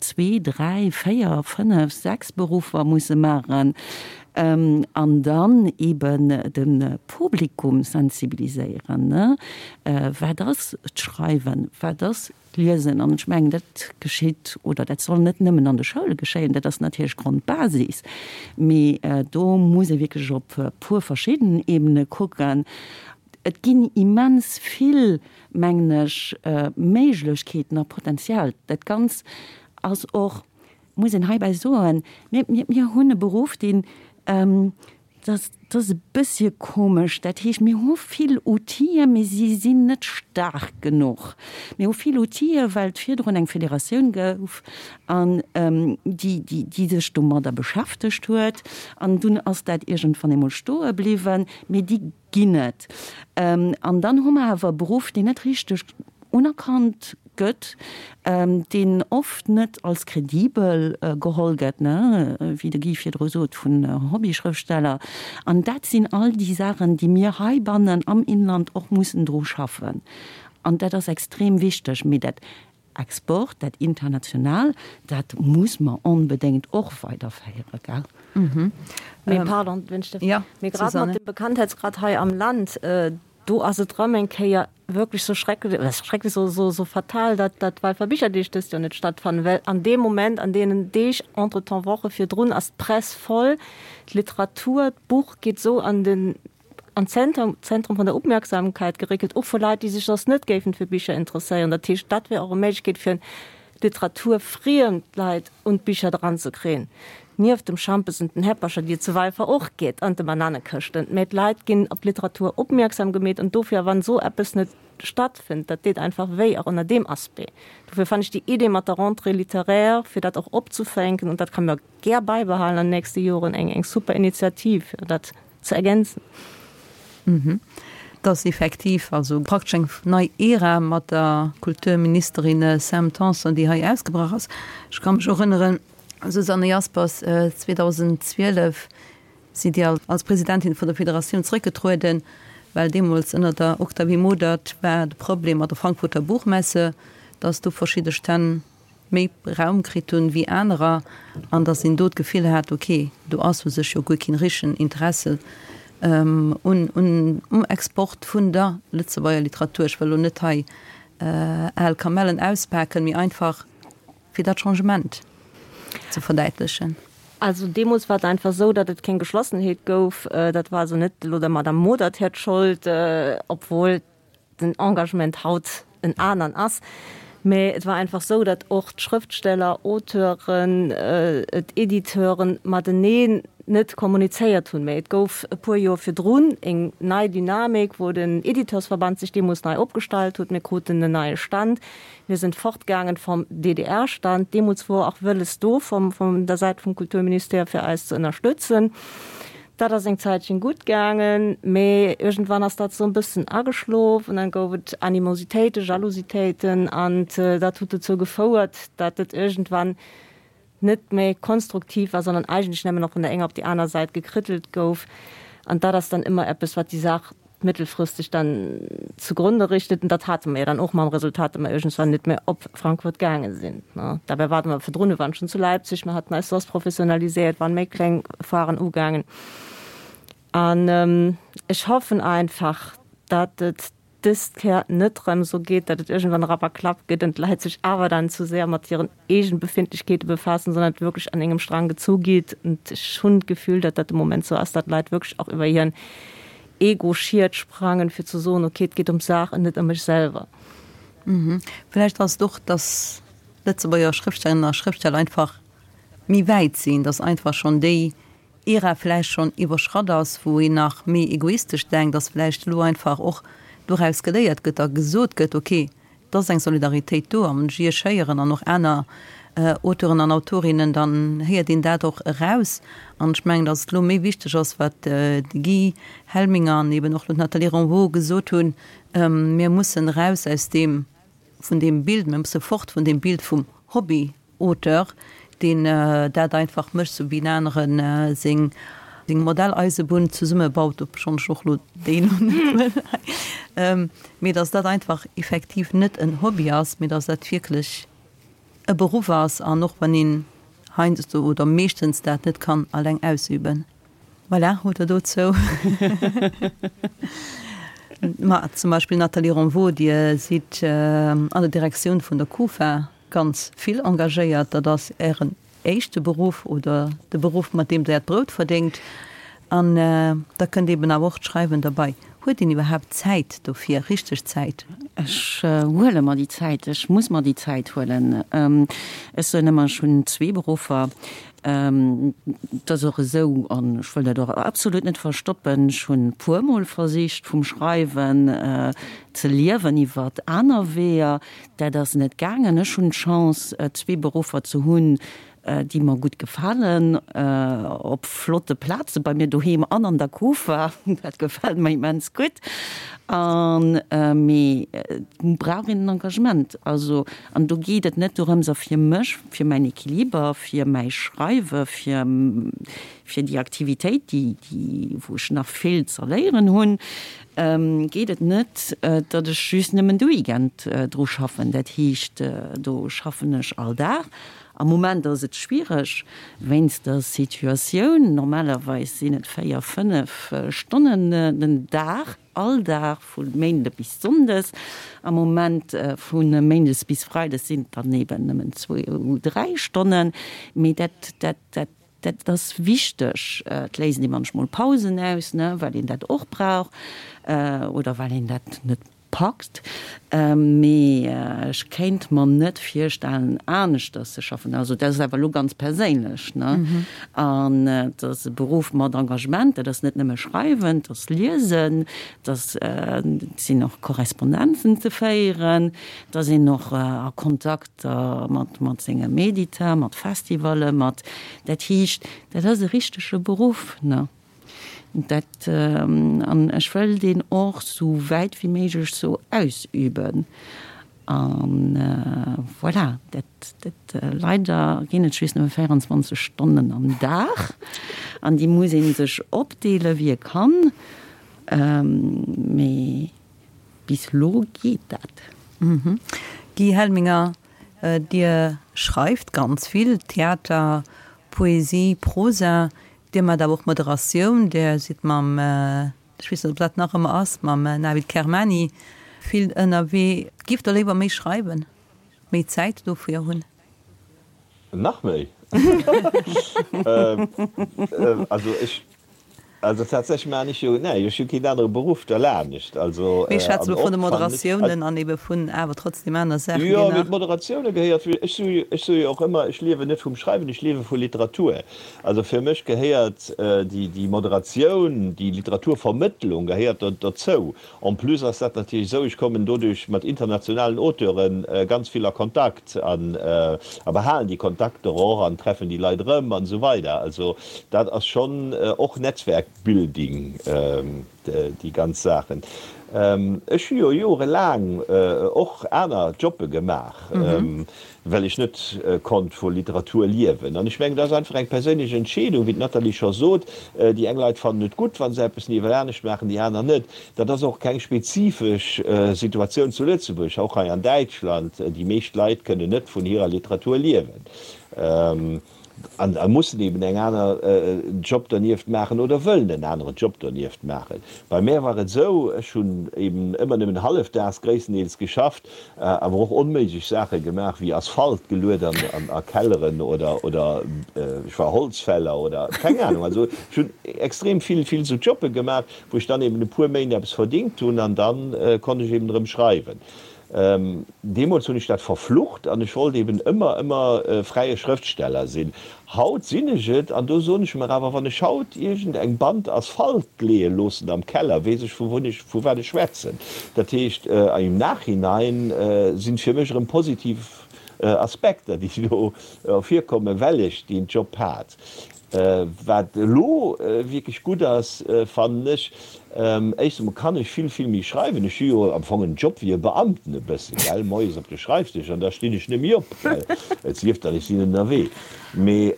zwee, dräi, véier, fënnef, sechs Beruffer musse maachen. An dann eben de Publikum sensibiliséieren, ne? Wat ass d'Schreiwen? Wat ass d'Liesen? An ech mengen, dat geschitt oder dat soll net nëmmen an de Schoule geschéien, dat ass natierlech d'Grondbasis, mee do muss ee wierklech op e puer verschidden Ebene kucken. Et ginn immens vill, mengen ech, Méiglechkeeten a Potenzial. Dat Ganz ass och, muss een heibäi soen, mir, mir, mir hunn e Beruff, deen, dat, dat ass e bëssche komesch, dat heescht, mir hu vill Outile, mee si sinn net staark genuch. Mir hu vill Outile, well et virdrun eng Federatioun gouf an déi, déi, déi sech domadder beschäftegt huet. An dunn ass dat iergendwann eemol stoe bliwwen. Mee déi ginn et. An dann hu mer awer e Beruff, deen net richteg unerkannt gëtt, deen oft net als kredibel geholl gëtt, ne, wéi de Guy virdru sot, vun Hobbyschrëftsteller. An dat sinn all déi Saachen, déi mir heibannen am Inland och mussen dru schaffen. An dat ass extrem wichteg. Mee dat Export, dat international, dat muss mer onbedéngt och weiderféieren, gell? Mee pardon, wenn ech därf, mee grad mat dem Bekanntheitsgrad hei am Land, do ass et erëm eng Kéier wierklech sou schrecklech, oder schrecklech, sou, sou, sou fatal, datt dat d'Walfer Bicherdeeg dëst Joer net stattfannen, well an deem Moment, an deenen Deeg, entretemps Woche virdrun, ass d'Press voll, d'Literatur, d'Buch geet esou an den an d'Zentrum Zentrum vun der Opmerksamkeit geréckelt, och vu Leit, déi sech soss net géifen fir Bicher interesséieren. Dat heescht, dat wär och e Méiglechkeet fir literaturfriemd Leit un d'Bicher dranzekréien, nieft dem Schampes und den Häppercher, déi et zu Walfer och gétt, an de Bananekëschten. Mä d'Leit ginn op d'Literatur opmierksam gemeet an dofir, wann esou eppes net stattfënnt, dat deet einfach wéi, och ënner deem Aspect. Dofir fannen ech déi Idee mat der Rentrée littéraire, fir dat och opzufänken, und dat kann mer gär bäibehalen an den nächste Joren, eng eng super Initiativ, fir dat ze ergänzen. Et ass effektiv also praktesch eng nei Ära mat der Kulturministerin Sam Tanson, déi hei ausgebrach ass. Ech ka mech erënneren, Susanne Jaspers, 2012 sidd Dir als Presidentin vun der Federatioun zréckgetrueden, well deemools ënner der Octavie Modert war de Problem mat der Frankfurter Buchmesse, datt do verschidde Stänn méi Raum kritt hunn wéi anerer an datt een do d'Gefill hat, ok, do ass u sech jo guer keen richtegen Interesse un um Export vun der Lëtzebuerger Literatur. Ech wëll elo net hei al Kamellen auspaken, mee einfach fir dat Changement ze verdäitlechen. Also deemools war et einfach esou, datt et keng Geschlossenheet gouf. Dat war also net elo der Madame Modert hiert Schold, obwuel den Engagement haut en anern ass, mä et war einfach esou, datt och d'Schrëftsteller, Auteuren, d'Editeuren mateneen net kommunizéiert hunn. Mä et gouf e puer Joer virdrun eng nei Dynamik, wou den Editeursverband sech deemools nei opgestallt huet. Mir kruten en neie Stand. Mir sinn fortgaangen vom DDR-Stand. Deemools wor och wëlles do vom, vun der Säit vum Kulturministère fir eis ze ënnerstëtzen. Dat ass eng Zäitchen gutt gaangen, mee iergendwann ass dat esou e bëssen ageschlof an dann gouf et Animositéiten, Jalousitéiten an dat huet dozou gefouert, dat et iergendwann net méi konstruktiv war, sondern eigentlech nëmmen nach vun der enger op déi aner Säit gekrittelt gouf. An dat ass dann ëmmer eppes, wat déi Saach mëttelfristeg dann zugrunde richtet. An dat hate mer jo dann och mam Resultat, datt mer iergendswann net méi op Frankfurt gaange sinn. Dabei ware mer virdrun, mir waren schonn zu Leipzig, mer haten eis soss professionaliséiert, waren méi kleng Foiren ugaangen. An ech hoffen einfach, datt et dëst Kéier net erëm esou geet, datt et iergendwann Rapperklapp gëtt an d'Leit sech awer dann zu séier mat hiren eegen Befindlichkeete befaassen, sondern et wierklech an engem Strang gezu geet. Und ech hunn d'Gefühl, datt dat de Moment esou ass, datt d'Leit wierklech och iwwer hiren Ego-Schiet sprangen, fir ze soen, okay, et geet ëm d'Saach an net ëm mech selwer. Vläicht ass et och, datt Lëtzebuerger Schrëftstellerinnen a Schrëftsteller einfach méi wäit sinn, datt einfach schonn déi Ära vläicht schonn iwwerschratt ass, wou een nach méi egoistesch denkt, datt vläicht elo einfach och doraus geléiert gëtt a gesot gëtt, okay, Et ass eng Solidaritéit do, a wann ech Iech héieren an och aner Auteuren an Autorinnen, dann héiert een dat och eraus. An ech mengen, datt et elo méi wichteg ass, wat de Guy Helminger an eben och elo d'Nathalie Renvaux gesot hunn, Mir mussen eraus aus deem, vun deem Bild, mir musse fort vun deem Bild vum Hobby. Auteur, deen dat einfach mécht, sou wéi en anere seng Modelleisebunn zesummebaut, obschonn ech och elo déi elo net wëll hei, mee datt dat einfach effektiv net en Hobby ass, mee datt dat wierklech e Beruff ass an och wann een heiansdo oder meeschtens dat net kann alleng ausüben. Voilà, hutt Der dozou. Ma zum Beispill Nathalie Ronvaux, Dir sidd an der Direktioun vun der Kufa ganz vill engagéiert. Dat ass Ären éischte Beruff oder de Beruff, mat deem Der Äert Brout verdéngt. An da kënnt eeben awer och d'Schreiwen derbei. Huet een iwwerhaapt Zäit dofir, richteg Zäit? Ech huele mer déi Zäit. Ech muss mer déi Zäit huelen. Ech soen ëmmer, ech hunn zwee Beruffer. Et ass och esou, an ech wëll dat och absolut net verstoppen, ech hunn e puermol versicht vum Schreiwen ze liewen iwwert aner Weeër. Dat ass net gaangen. Ech hunn d'Chance zwee Beruffer ze hunn, déi mer gutt gefalen, op flotte Plaze bei mir doheem an an der Kufa. Dat gefält mer immens gutt. An mee et brauch een en Engagement. Also, an do geet et net dorëms, a fir mech, fir mäin Equiliber, fir mäi Schreiwe, fir fir déi Aktivitéit, déi déi wou ech nach vill z'erléieren hunn, geet et net, datt ech just nëmmen de Weekend dru schaffen. Dat heescht, do schaffen ech all Dag. Am Moment ass et schwiereg wéinst der Situatioun. Normalerweis sinn et 4, 5 Stonnen den Dag, all Dag vu Méinde bis Sonndes. Am Moment vu Méindes bis Freides sinn et dann eben nëmmen zwou, dräi Stonnen. Mee dat, dat, dat, dat ass wichteg. Et léisst ee munchmol Pausen aus, ne, well een dat och brauch oder well een dat net Packt, mee ech kéint mer net virstellen aneschters ze schaffen. Also dat ass awer elo ganz perséinlech, ne? An et ass e Beruff mat Engagement, dat ass net nëmme schreiwen, et ass liesen, et ass, et sinn och Korrespondenzen ze féieren, et ass een och a Kontakter mat mat sengem Editeur, mat Festivallen, mat, dat heescht, dat ass e richtege Beruff, ne? Dat, an ech wëll deen och sou wäit wéi méiglech sou ausüben. An voilà, dat, dat, leider ginn et just nëmme 24 Stonnen am Dag an déi muss ee sech opdeele wéi e kann. Mee bis elo geet dat. Guy Helminger, Dir schreift ganz vill, Theater, Poesie, Prosa. Dir maacht awer och Moderatioun, Dir sidd mam, ech weess net, ob dat nach ëmmer ass, mam Navid Kermani vill ënnerwee. Giff Der léiwer méi schreiwen, méi Zäit dofir hunn? Nach méi? Also ech Also tatsächlech maachen ech jo, nee, ech hu keen anere Beruff derlaanescht. Also, Mir schwätzen elo vun de Moderatiounen an ebe vun awer trotzdem aner Saachen, déi nach. Jo, mee d'Moderatioune gehéiert, ech soe jo, ech soe jo och ëmmer, ech liewen net vum Schreiwen, ech liewe vu Literatur. Also fir mech gehéiert déi, déi Moderatioun, déi Literaturvermëttlung gehéiert dozou. En plus ass dat natierlech esou, ech kommen doduerch mat internationalen Auteure ganz vill a Kontakt an a behalen déi Kontakter och an treffen déi Leit erëm an esou weider. Also dat ass schonn och Netzwerkbuilding, déi ganz Saachen. Ech hu jo jorelaang och aner Jobbe gemaach. Well ech net konnt vu Literatur liewen. An ech mengen, dat ass einfach eng perséinlech Entscheedung, wéi d'Nathalie scho sot. Déi eng Leit fannen et gutt, wa se eppes niewel anescht maachen, déi aner net. Dat ass och keng spezifesch Situatioun zu Lëtzebuerg, och hei an Däitschland. Déi meescht Leit kënnen net vun hirer Literatur liewen. An a mussen eben eng aner Job dernieft maachen oder wëllen en aneren Job dernieft maachen. Bei mär war et esou, ech hunn eben ëmmer nëmmen hallefdaags gréisstendeels geschafft, awer och onméiglech Saache gemaach wéi Asphalt geluet an a Kelleren oder oder ech war Holzfäller oder keng Ahnung. Also ech hunn extrem vill vill esou Jobbe gemaach, wou ech dann eben e puer Méint eppes verdingt hunn an dann konnt ech eben erëm schreiwen. Deemools hunn ech dat verflucht an ech wollt eben ëmmer, ëmmer fräie Schrëftsteller sinn. Haut sinn ech et an do soen ech mer awer, wann ech haut iergend eng Band Asphalt leeë loossen am Keller, weess ech vu wou ech, vu wat ech schwätzen. Dat heescht, im Nachhinein sinn et fir mech erëm positiv Aspekter, déi do ervirkommen, well ech deen Job hat. Wat elo wierklech gutt ass, fannen ech, éischt emol kann ech vill, vill méi schreiwen. Ech hu jo am Fong en Job wéi e Beamten e bëssen, gell, moies op de Schreifdësch an da stinn ech net méi op, gell, et sief dann, ech sinn ënnerwee. Mee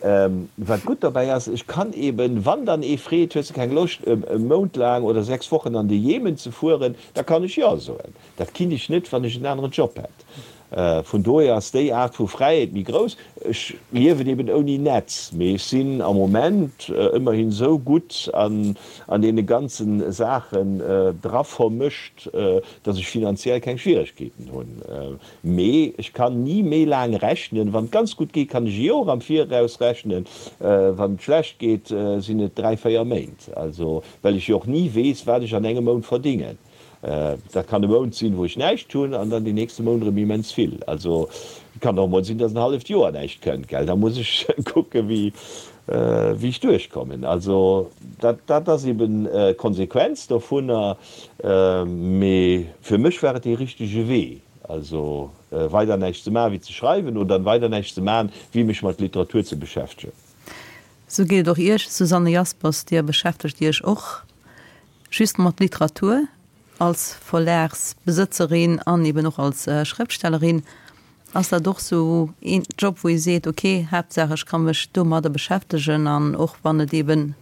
wat gutt dobäi ass, ech kann eben, wann dann ee freet, hues de keng Loscht e Mount laang oder 6 Wochen an de Jemen ze fueren, da kann ech jo soen. Dat kinnt ech net, wann ech en aneren Job hätt. Vun dohier ass déi Aart vu Fräiheet méi grouss. Ech liewen eben ouni Netz, mee ech sinn am Moment ëmmerhin esou gutt an deene ganze Saachen dra vermëscht, datt ech finanziell keng Schwieregkeeten hunn. Mee ech kann ni méi laang rechnen. Wann et ganz gutt geet, kann ech e Joer am Viraus rechnen. Wann et schlecht geet, sinn et 3, 4 Méint. Also, well ech jo och ni weess, wat ech an engem Mount verdingen. Dat kann e Mount sinn, wou ech näischt hunn, an dann deen nächste Mount erëm immens vill. Also et kann och emol sinn, datt en halleft Joer näischt kënnt, gell. Da muss ech kucken, wéi wéi ech duerchkommen. Also dat dat ass eben d'Konsequenz dovunner. Mee fir mech war et dee richtege Wee, also weider näischt ze maachen, wéi ze schreiwen, oder weider näischt ze maachen, wéi mech mat Literatur ze beschäftegen. Sou geet et och Iech, Susanne Jaspers. Dir beschäftegt Iech och Just mat Literatur, als Verlagsbesëtzerin an eben och als Schrëftstellerin, ass dat och sou een Job, wou ee seet, ok, Haaptsaach ech ka mech domadder beschäftegen an och wann et eben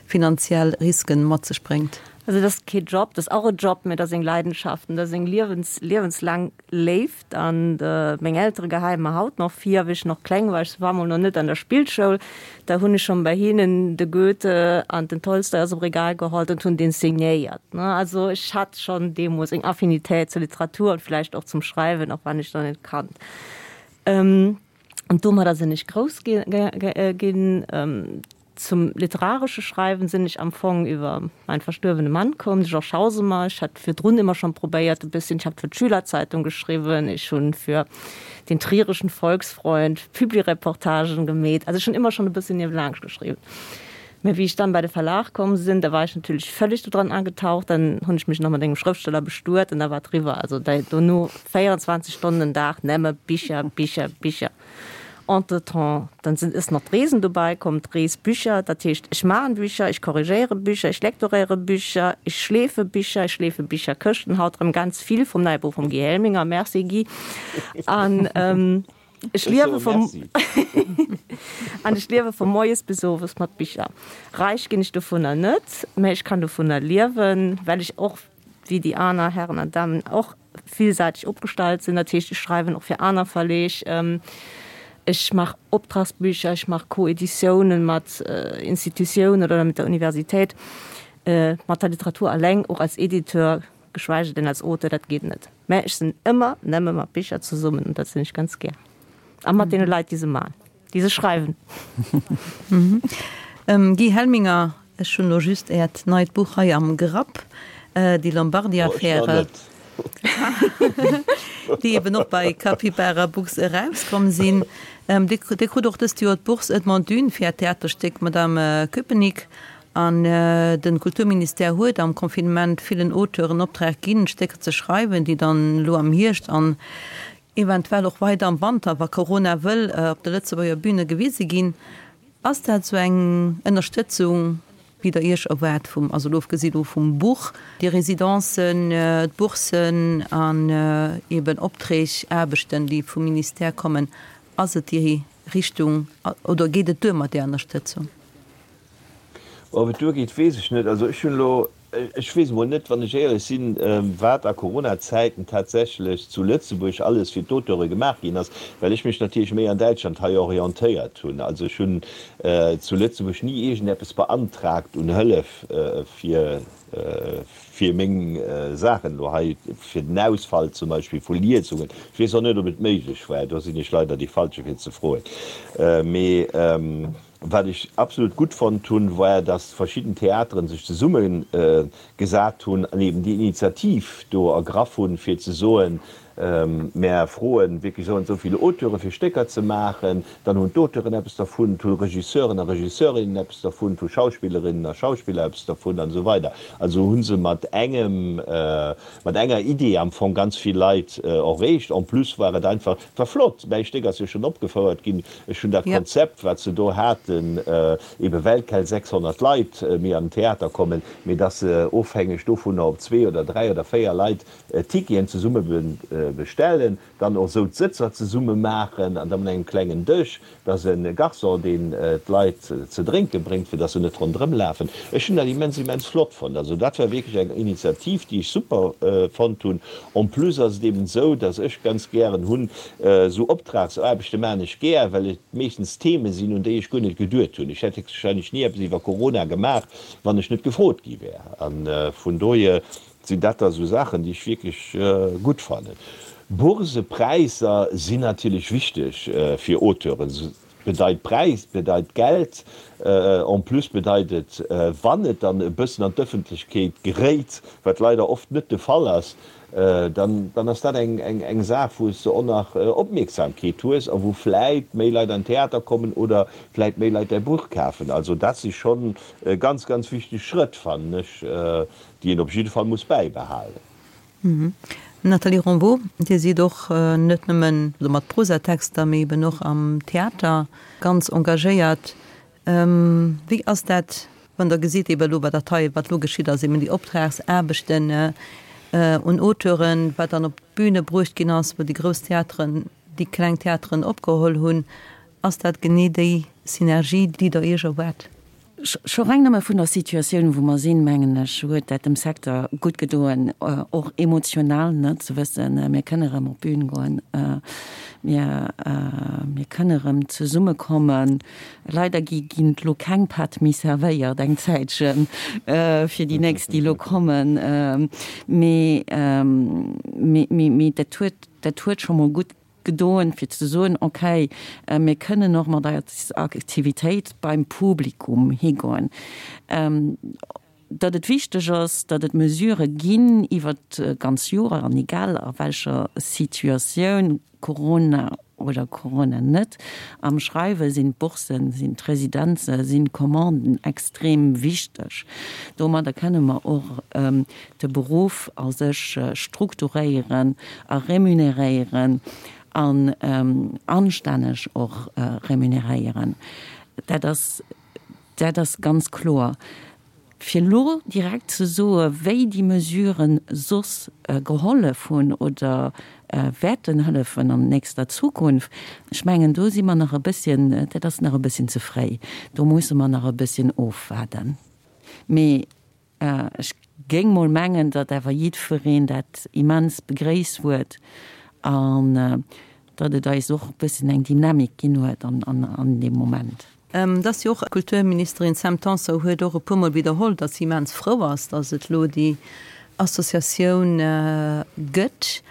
finanziell Risken mat sech bréngt? Also dat ass kee Job, dat ass och e Job, mä dat ass eng Leidenschaft an dat ass eng liewens, liewenslaang Léift. An meng Eltere geheie mer haut nach vir, wéi ech nach kleng war, ech war mol nach net an der Spillschoul, da hunn ech schonn bei hinnen de Goethe an den Tolstoi aus dem Regal geholt und hunn deen signéiert. Also ech hat schonn deemools eng Affinitéit zur Literatur und vläicht och zum Schreiwen, och wann ech der net kannt. Und domadder sinn ech grouss ginn. Zum literaresche Schreiwen sinn ech am Fong iwwer mein verstuerwene Mann komm, de Georges Hausemer. Ech hat virdrun ëmmer schonn probéiert e bësschen, ech hat fir d'Schülerzeitung geschriwwen, ech hunn fir den Trierischen Volksfreund Publireportagen gemeet, also ech hunn ëmmer schonn e bësschen niewelaanscht geschriwwen. Mä wéi ech dann bei de Verlag komm sinn, da war ech natierlech völlig do dran agetaucht, dann hunn ech mech nach mat engem Schrëftsteller bestuet an da war et eriwwer. Also dono 24 Stonnen den Dag nëmme Bicher, Bicher, Bicher. Entretemps, dann sinn is nach d'Reesen dobäi komm, d'Reesbücher, dat heescht, ech maachen Bücher, ech korrigéiere Bücher, ech lektoréiere Bücher, ech schleefe Bicher, ech schleefe Bicherkëschten, haut erëm ganz vill vum neie Buch vum Guy Helminger, merci Guy, an ech liewe vum an ech liewe vu moies bis owes mat Bicher. Räich ginn ech dovunner net, mä ech kann dovunner liewen, well ech och wéi déi aner Herren an Damen och villsäiteg opgestallt sinn. Dat heescht, ech schreiwen och fir aner Verleeg, ech maach Optragsbücher, ech maach Co-Editiounen mat Institutiounen oder mit der Universitéit. Mat der Literatur alleng, och als Editeur, geschweige denn als Auteur, dat geet net. Mä ech sinn ëmmer nëmme mat Bicher zesummen an dat sinn ech ganz gär. A mat deene Leit, déi se maachen. Déi se schreiwen. Guy Helminger, ech hunn elo just Äert neit Buch hei am Grapp, Die Lombardi-Affäre, déi eben och bei Capybara Books erauskomm sinn. Dir krut och dëst Joer d'Bourse Edmond Dune fir Äert Theaterstéck Madame Köpenick. An de Kulturministère huet am Confinement villen Auteuren Optrag ginn, Stécker ze schreiwen, déi dann elo am Hierscht an eventuell och weider am Wanter, wa Corona wëll, op de Lëtzebuerger Büne gewise ginn. Ass dat esou eng Ënnerstëtzung, wéi Der Iech erwaart vum, also elo ofgesi lo vum Buch, déi Residencen, d'Boursen an eben Opträg, Aarbechten, déi vum Ministère kommen, ass et déi Richtung oder geet et duer mat där Ënnerstëtzung? Ob et duergeet, weess ech net. Also ech hunn elo, ech weess emol net, wann ech éierlech sinn, wat a Corona-Zäiten tatsächlech zu Lëtzebuerg alles fir d'Auteure gemaach ginn ass, well ech mech natierlech méi an Däitschland hei orientéiert hunn. Also ech hunn zu Lëtzebuerg ni iergendeppes beantragt un Hëllef fir fir meng Saachen elo hei, fir den Ausfall zum Beispill vu Liesungen. Ech weess och net, ob et méiglech war, do sinn ech leider dee Falsche fir ze froen. Mee Wat ech absolut gutt fonnt hunn, war, dass verschidden Theateren sech zesumme gesat hunn an eben déi Initiativ do ergraff hunn, fir ze soen, Mär froen wierklech esou an esou vill Auteure fir Stécker ze maachen. Dann hunn d'Auteuren eppes dervun, et hu Regisseuren a Regisseurinnen eppes dervun, et hu Schauspillerinnen a Schauspiller eppes dervun an esou weider. Also hu se mat engem, mat enger Idee am Fong ganz vill Leit erreecht. En plus war et einfach, et war flott, mäi Stéck ass jo schonn opgefouert ginn, Ech hunn dat Konzept, wat se do haten, ebe well keng 600 Leit méi an den Theater kommen, mee dass se ofhängeg dovunner, ob zwee oder dräi oder véier Leit Ticketen zesumme. bestellen, dann och esou d'Sëtzer zesumme maachen an da mat engem klengen Dësch, dass e Garçon, deen d'Leit ze drénke bréngt, fir dass se net ronderëm lafen. Ech hunn dat immens, immens flott fonnt. Also dat war wierklech eng Initiativ, déi ech super fonnt hunn. En plus ass et eben esou, dass ech ganz gären hunn, esou Optragsaarbechte maachen ech gär, well et meeschtens Theme sinn, un déi ech guer net geduet hunn. Ech hätt héchstwahrscheinlech ni eppes iwwer Corona gemaach, wann ech net gefrot gi wär. A vun dohier sinn dat da esou Saachen, déi ech wierklech gutt fannen. Bourse-Präisser sinn natierlech wichteg fir Auteuren. Bedeit Präis, bedeit Geld. En plus bedeit et, wann et dann e bëssen an d'Ëffentlechkeet geréit, wat leider oft net de Fall ass, dann dann ass dat eng eng Saach, wou s de och nach Opmierksamkeet hues a wou vläit méi Leit an den Theater kommen oder vläit méi Leit däi Buch kafen. Also dat si schonn ganz, ganz wichteg Schrëtt, fannen ech, déi een op jidde Fall muss bäibehalen. Nathalie Rambaud, Dir sidd och net nëmmen mat Prosatexter, mee eben och am Theater ganz engagéiert. Wéi ass dat, wann Der gesitt, eben elo wat dat hei, wat elo geschitt ass, eben déi Optragsaarbechten un Auteuren, wat dann op d'Büne bruecht ginn ass, wou déi grouss Theateren déi kleng Theateren opgeholl hunn, ass dat genee déi Synergie, déi Der Iech erwaart? Scho reng nëmme vun der Situatioun, wou mer sinn, mengen ech, huet dat dem Secteur gutt gedoen, och emotional, ne, ze wëssen, mir kënne erëm op d'Bün goen, mir, mir kënne erëm zesummekommen. Leider gi ginn elo keng Patt méi servéiert eng Zäitchen, fir déi nächst, déi elo kommen. Mee, mee, mee dat huet, dat huet scho mol gutt gedoen, fir ze soen, okay, mir kënnen och mat eiser Aktivitéit beim Publikum higoen. Datt et wichteg ass, datt et Mesurë ginn iwwer d'ganz Joer an egal a welcher Situatioun, Corona oder Corona net, am Schreiwe sinn d'Boursen, sinn d'Residenze, sinn d'Commanden extrem wichteg. Domadder kënne mer och de Beruff a sech strukturéieren a remuneréieren an anstänneg och remuneréieren. Dat ass, dat ass ganz kloer. Fir elo direkt ze soe wéi déi Mesuren soss gehollef hunn oder wäerten hëllefen an nächster Zukunft, ech mengen do si mer nach e bësschen, dat ass nach e bësschen ze fréi. Do musse mer nach e bësschen ofwaarden. Mee Ech géing mol mengen, datt awer jiddwereen dat immens begréisst huet an datt et eis och e bëssen eng Dynamik ginn huet an deem Moment. Et ass jo och, d'Kulturministerin Sam Tanson huet och e puermol widderholl, datt si immens frou ass, datt et elo déi Associatioun gëtt,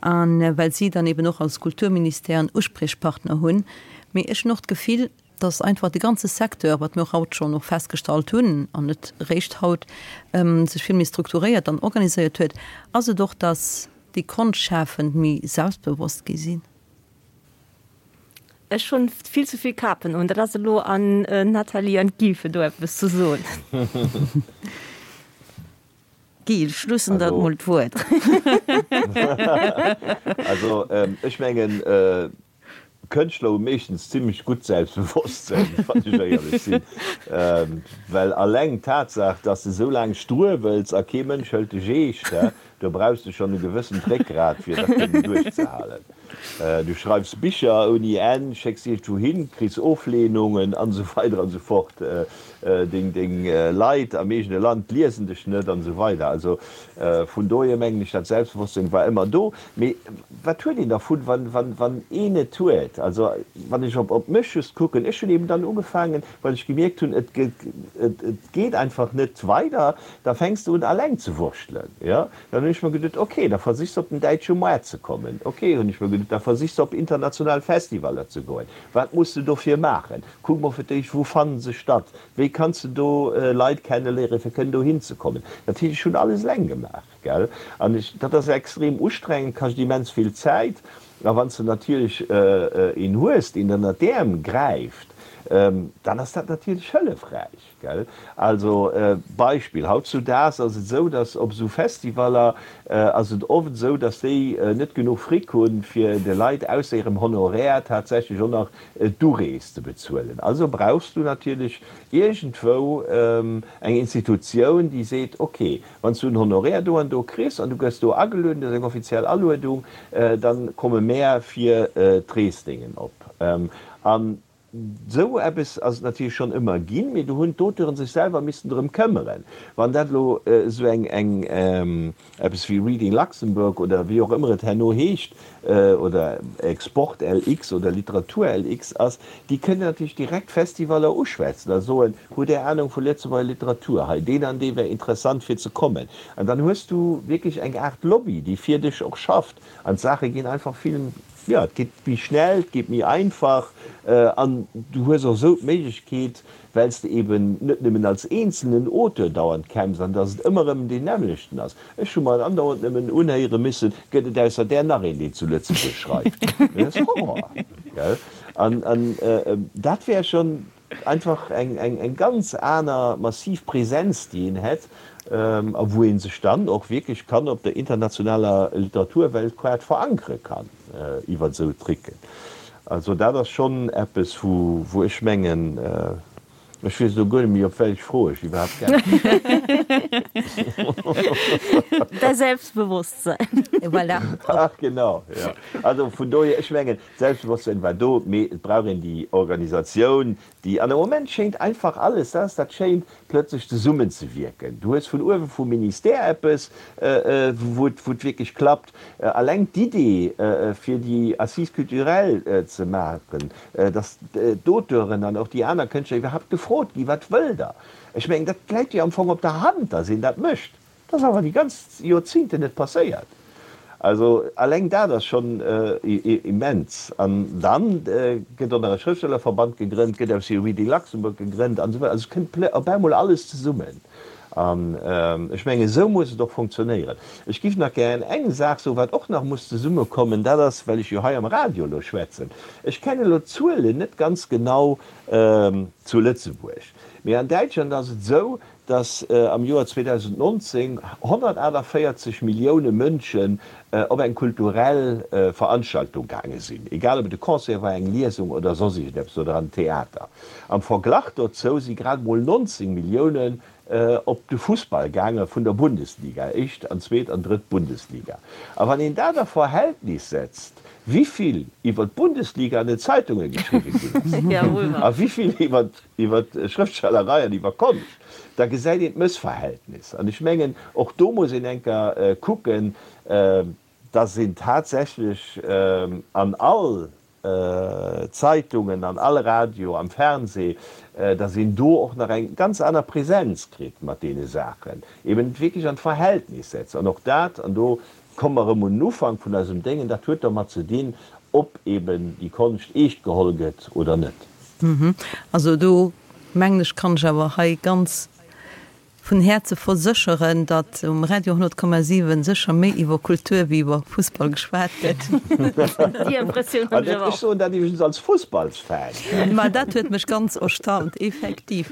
a well si dann eben och als Kulturministère en Uspriechpartner hunn. Mee ech hunn och d'Gefill, dass einfach de ganze Secteur, wat mir och haut schonn och festgestallt hunn, an net eréischt haut, sech vill méi strukturéiert an organiséiert huet, ass et och, dass déi Konschtschafend méi selbstbewosst gi sinn. Ech hunn vill ze vill Kapen un. Dat ass elo an Nathalie an d'Guy fir do eppes ze soen. Guy, ech loossen der mol d'Wuert. Also ech mengen, Kënschtler hu meeschtens zimmlech gutt Selbstbewosstsënn, wann ech éierlech sinn. Well alleng d'Tatsaach, dass de sou laang struewels a kee Mënsch hëlt dech eescht, do brauchs de schonn e gewëssent Réckgrat, fir dat kënnen duerchzehalen. Du schreifs Bicher ouni Enn, schécks iergendwou hin, kriss Oflehnungen an esou weider an esou fort. Deng Leit am eegene Land liesen dech net an esou weider. Also vun dohier mengen ech, dat Selbstbewosstsinn war ëmmer do. Mee wat huet een dervun, wann een et huet? Also wann ech op mech just kucken, ech hunn eben dann ugefaangen, well ech gemierkt hunn, et geet einfach net weider, da fänks de un alleng ze wurschtelen. Jo, dann hunn ech mer geduet, ok, da versichs de op den däitsche Moart ze kommen. Ok, hunn ech mer geduet, da versichs de op international Festivaller ze goen. Wat muss de dofir maachen? Kuck mol fir d'éischt, wou fannen se statt? Wéi kanns de do Leit kenneléieren, fir kënnen dohin ze kommen? Dat heescht, ech hunn alles eleng gemaach. Gell? An ech, dat ass extrem ustrengend, kascht immens vill Zäit. A wann s de natierlech een hues, deen der ënnert d'Äerm gräift. dann ass dat natierlech hëllefräich, gell. Also Beispill, hautzudaags ass et esou, datt op esou Festivaller ass et oft esou, datt déi net genuch Fric hunn, fir de Leit ausser hirem Honoraire tatsächlech och nach d'Urees ze bezuelen. Also brauchs du natierlech iergendwou eng Institutioun, déi seet, ok, Wann s du en Honoraire do an do kriss an du gëss do agelueden, dat ass eng offiziell Aluedung, da komme mär fir d'Reesdéngen op. An esou eppes ass et natierlech schonn ëmmer ginn, mee do hunn d'Auteuren sech selwer missen drëm këmmeren. Wann dat elo esou eng, eng, eppes wéi Reading Luxembourg oder wéi och ëmmer et herno heescht, oder Export LX oder Literatur LX ass, déi kënnen natierlech direkt Festivaller uschwätzen a soen, Hutt Där Anung vu Lëtzebuerger Literatur? Hei, deen an dee wär interessant fir ze kommen. An dann hues du wierklech eng Aart Lobby, déi fir dech och schafft. An d'Saache ginn einfach vill, jo, et geet méi schnell, et geet méi einfach an du hues och esou d'Méiglechkeet, well s de eben net nëmmen als eenzelnen Auteur dauernd kämpfs an dass et ëmmer erëm deen nämmlechten ass. Ech hu mer andauernd nëmmen unhéiere missen, Gëtt et ausser där nach een, deen zu Lëtzebuerg schreift? Dat ass Horror, gell? An dat wär schonn einfach eng ganz aner massiv Präsenz, déi een hätt a wou ee sech dann och wierklech kann op der internationaler Literaturweltkaart verankere kann iwwer esou Tricken. Also dat ass schonn eppes, wou ech mengen, ech weess elo guer net méi, op wellech Fro ech iwwerhaapt geäntwert hunn. Däi Selbstbewosstsein. Voilà. Ach genau, jo. Also vun dohier, ech mengen, d'Selbstbewosstsein war do, mee et brauch een déi Organisatioun, déi, an am Moment schéint einfach alles, dat ass dat Schéint, plötzlech zesummenzewierken. Du hues vun uewe vum Ministère eppes, wou et wierklech klappt. Alleng d'Idee, fir déi Assises culturelles ze maachen, datt d'Auteuren an och déi aner Kënschtler iwwerhaapt gefrot ginn, Wat wëllt Der? Ech mengen, dat läit jo am Fong op der Hand, datt een dat mécht. Dat ass awer déi ganz Joerzingten net passéiert. Also alleng dat ass schonn immens. An dann gëtt och nach e Schrëftstellerverband gegrënnt, gëtt aus dem Reading Luxembourg gegrënnt an esou weider. Also et kënnt op eemol alles zesummen. An ech mengen, esou muss et och funktionéieren. Ech géif nach gären eng Saach soen, wat och nach muss zesummekommen, dat ass, well ech jo hei am Radio elo schwätzen, ech kennen elo d'Zuelen net ganz genau zu Lëtzebuerg, mee an Däitschland ass et esou, dass am Joer 2019 148 Millioune Mënschen op eng kulturell Veranstaltung gaange sinn, egal ob et e Concert war, eng Liesung oder soss iergendeppes oder an den Theater. Am Verglach dozou si grad emol 19 Milliounen op de Fussball gaange vun der Bundesliga, éischt an zweet an drëtt Bundesliga. A wann een dat a Verhältnis setzt, wivill iwwer d'Bundesliga an den Zeitunge geschriwwe ginn ass a wivill iwwer iwwer Schrëftstellerei an iwwer Konscht, da gesäit een d'Mëssverhältnis. An ech mengen, och do muss een eng Kéier kucken, dass een tatsächlech an all Zeitungen, an all Radio, am Fernseh, dass een do och nach eng ganz aner Präsenz kritt mat deene Saachen, eben et wierklech an d'Verhältnis setzt. An och dat, an do komme mer erëm un den Ufank vun eisem Déngen, dat huet dermat ze dinn, ob eben déi Konscht eescht geholl gëtt oder net. Also do mengen ech, kann ech awer hei ganz vun Häerze versécheren, datt um Radio 100,7 sécher méi iwwer Kultur wéi iwwer Fussball geschwat gëtt. Déi Impressioun hunn ech awer och. Ech soen dat iwwregens als Fussballsfan. Ma dat huet mech ganz erstaunt, effektiv.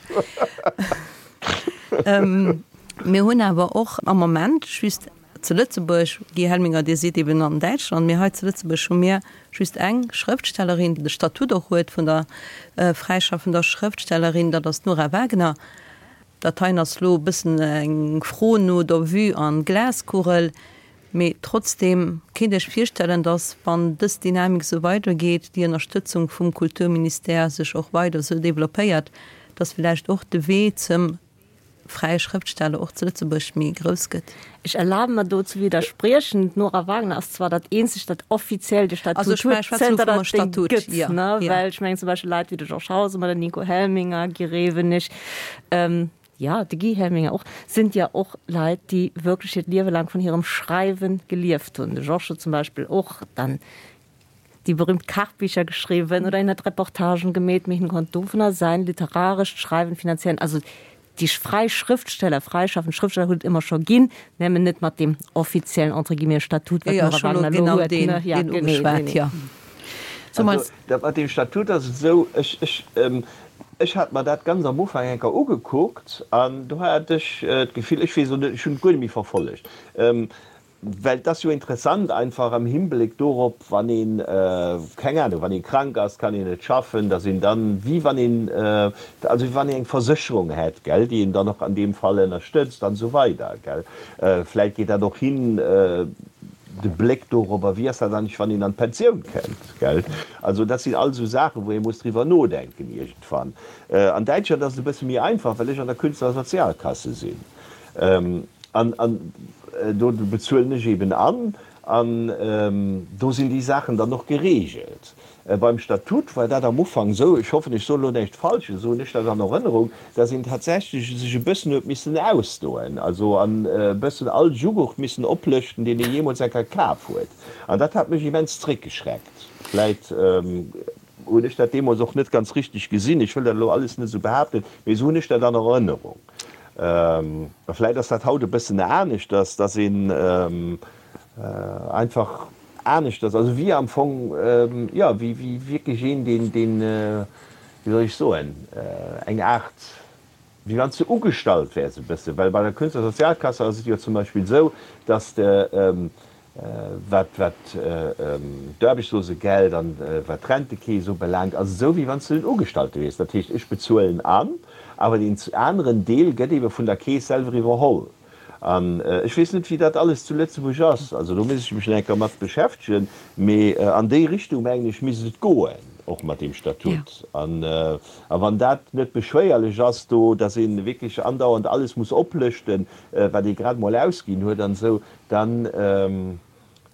Mir hunn awer och am Moment just Zu Lëtzebuerg, Guy Helminger, Dir sidd eben an Däitschland, mee hei zu Lëtzebuerg hu mir just eng Schrëftstellerin, déi de Statut och huet vun der fräischaffender Schrëftstellerin, dat ass d'Nora Wagener. Dat heien ass elo e bëssen eng Fro no der Vue an Glaskugel, mee trotzdeem, kéint Iech virstellen, datt, wann dës Dynamik esou weidergeet, déi Ënnerstëtzung vum Kulturministère sech och weider esou developpéiert, datt villäicht och de Wee zum fräie Schrëftsteller och zu Lëtzebuerg méi grouss gëtt. Ech erlabe mer do ze widderspriechen. D'Nora Wagner ass zwar dat eenzegt, dat offiziell de Statut huet, zënter datt et dee gëtt, ne? Well ech mengen zum Beispill Leit wéi de Georges Hausemer, den Nico Helminger, Guy Rewenig, jo, de Guy Helminger och, sind ja och Leit, déi wierklech hiert Liewe laang vun hirem Schreiwe gelieft hunn. De Georges huet zum Beispill och dann déi berühmt Kachbicher geschriwwen oder hien huet Reportagen gemeet, mee hien konnt dovunner säin literarescht Schreiwen finanzieren. Also déi fräi Schrëftsteller, fräischaffend Schrëftsteller huet et ëmmer scho ginn, nëmmen net mat deem offiziellen, entre guillemets, Statut, wat d'Nora Wagner elo huet, ne? Ja, genee, genee. Also, dat mat deem Statut ass et esou, ech, ech, ech hat mer dat ganz am Ufank eng Kéier ugekuckt an do hat ech d'Gefill, ech weess elo net, ech hunn et guer net méi verfollegt, well et ass jo interessant einfach am Himbléck dorop, wann een, keng Ahnung, wann ee krank ass, kann een net schaffen, datt een dann, wéi wann een, also wéi wann een eng Versécherung hätt, gell, déi een dann och an deem Fall ënnerstëtzt an esou weider, gell. Vläicht geet dat och hin, de Bléck dorobber, wéi ass dat eigentlech, wann een an d'Pensioun kënnt, gell? Also dat sinn all esou Saachen, wou ee muss driwwer nodenken iergendwann. An Däitschland ass et e bësse méi einfach, well ech an der Künstlersozialkasse sinn. An do bezuelen ech eben an, an do sinn déi Saachen dann och geregelt. Beim Statut war dat am Ufank esou, ech hoffen, ech soen elo näischt Falsches, esou hunn ech dat an Erënnerung, dass een tatsächlech sech e bëssen huet missen ausdoen, also an e bëssen all Jughurt missen oplëschten, deen ee jeemools eng Kéier kaf huet. An dat hat mech immens zréckgeschreckt. Vläit hunn ech dat deemools och net ganz richteg gesinn, ech wëll dat elo alles net esou behaapten, mee esou hunn ech dat an Erënnerung. A vläit ass dat haut e bëssen aneschters, dass een einfach aneschters, also wéi am Fong, jo, wéi wierklech een, deen, deen, wéi soll ech soen, eng Aart, wéi wann s de ugestallt wäers e bëssen, well bei der Künstlersozialkasse ass et jo zum Beispill esou, dass de, wat, wat d'Aarbechtslosegeld an wat d'Rentekeess ubelaangt, ass et esou, wéi wann s de en Ugestallte wiers. Dat heescht, ech bezuelen an, awer deen aneren Deel gëtt eebe vun der Keess selwer iwwerholl. An ech weess net, wéi dat alles zu Lëtzebuerg ass, also do misst ech mech nach eng Kéier mat beschäftegen, mee an déi Richtung, mengen ech, misst et goen, och mat deem Statut. An a wann dat net beschwéierlech ass do, datt ee wierklech andauernd alles muss oplëschten, wat ee grad emol ausginn huet an esou, dann,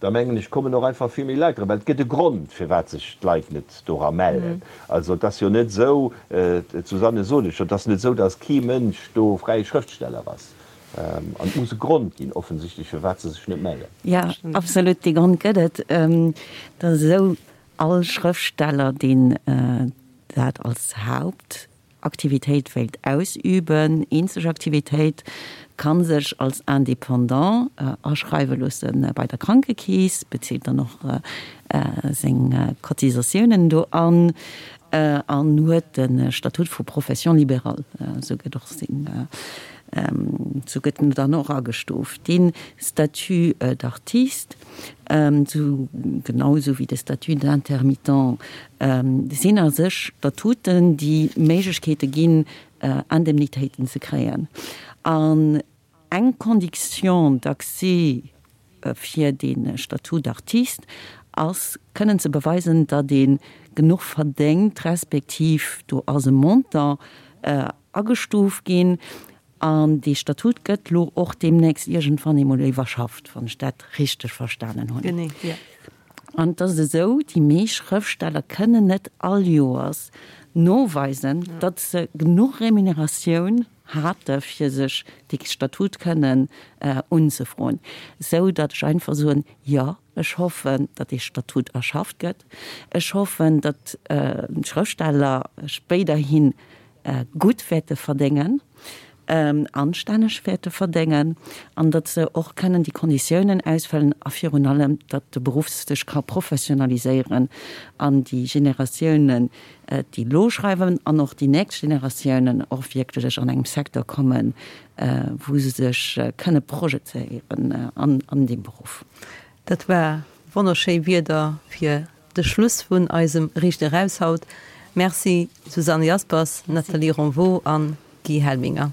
da mengen ech, kommen och einfach vill méi Leit dran, well et gëtt e Grond, firwat sech d'Leit net dora mellen. Also et ass jo net esou, d'Susanne sot et scho, et ass net esou, datt kee Mënsch do fräie Schrëftsteller ass. An et muss e Grond ginn, offensichtlech, firwat se sech net mellen. Jo, absolut, dee Grond gëtt et. Et ass esou, all Schrëftsteller, deen dat als Haupt Aktivitéit wéilt ausüben, eenzeg Aktivitéit, kann sech als Indépendant aschreiwe loosse bei der Krankekeess, bezilt dann och seng Cotisatiounen do an an huet de Statut vu Profession libérale, esou gëtt och seng, esou gëtt en dann och agestuuft. Dee Statut d'artiste, Sou genau esou wéi de Statut d'intermittent sinn a sech Statuten, déi Méiglechkeete ginn, Indemnitéiten ze kréien. An eng Condition d'accès fir dee Statut d'artiste ass, kënnen ze beweisen, datt ee genuch verdéngt, respektiv do ass e Montant agestuuft ginn, An dee Statut gëtt lo och deemnächst iergendwann eemol iwwerschafft, wann ech dat richteg verstanen hunn. Genee, jo. An et ass esou, déi meescht Schrëftsteller kënnen net all Joers noweisen, datt se genuch Remuneratioun hate fir sech dee Statut kënnen unzefroen, esou datt ech einfach soen, jo, ech hoffen, datt dee Statut erschafft gëtt. Ech hoffen, datt d'Schrëftsteller spéiderhi gutt wäerte verdéngen, anstänneg wäerte verdéngen an datt se och kënnen déi Konditiounen ausfëllen a virun allem, datt de Beruff sech ka professionaliséieren an déi Generatiounen, déi elo schreiwen an och déi nächst Generatiounen och wierklech an engem Secteur kommen, wou se sech kënne projezéieren an deem Beruff. Dat war wonnerschéi Wierder fir De Schluss vun eisem Riicht Eraus haut. Merci Susanne Jaspers, Nathalie Ronvaux an Guy Helminger.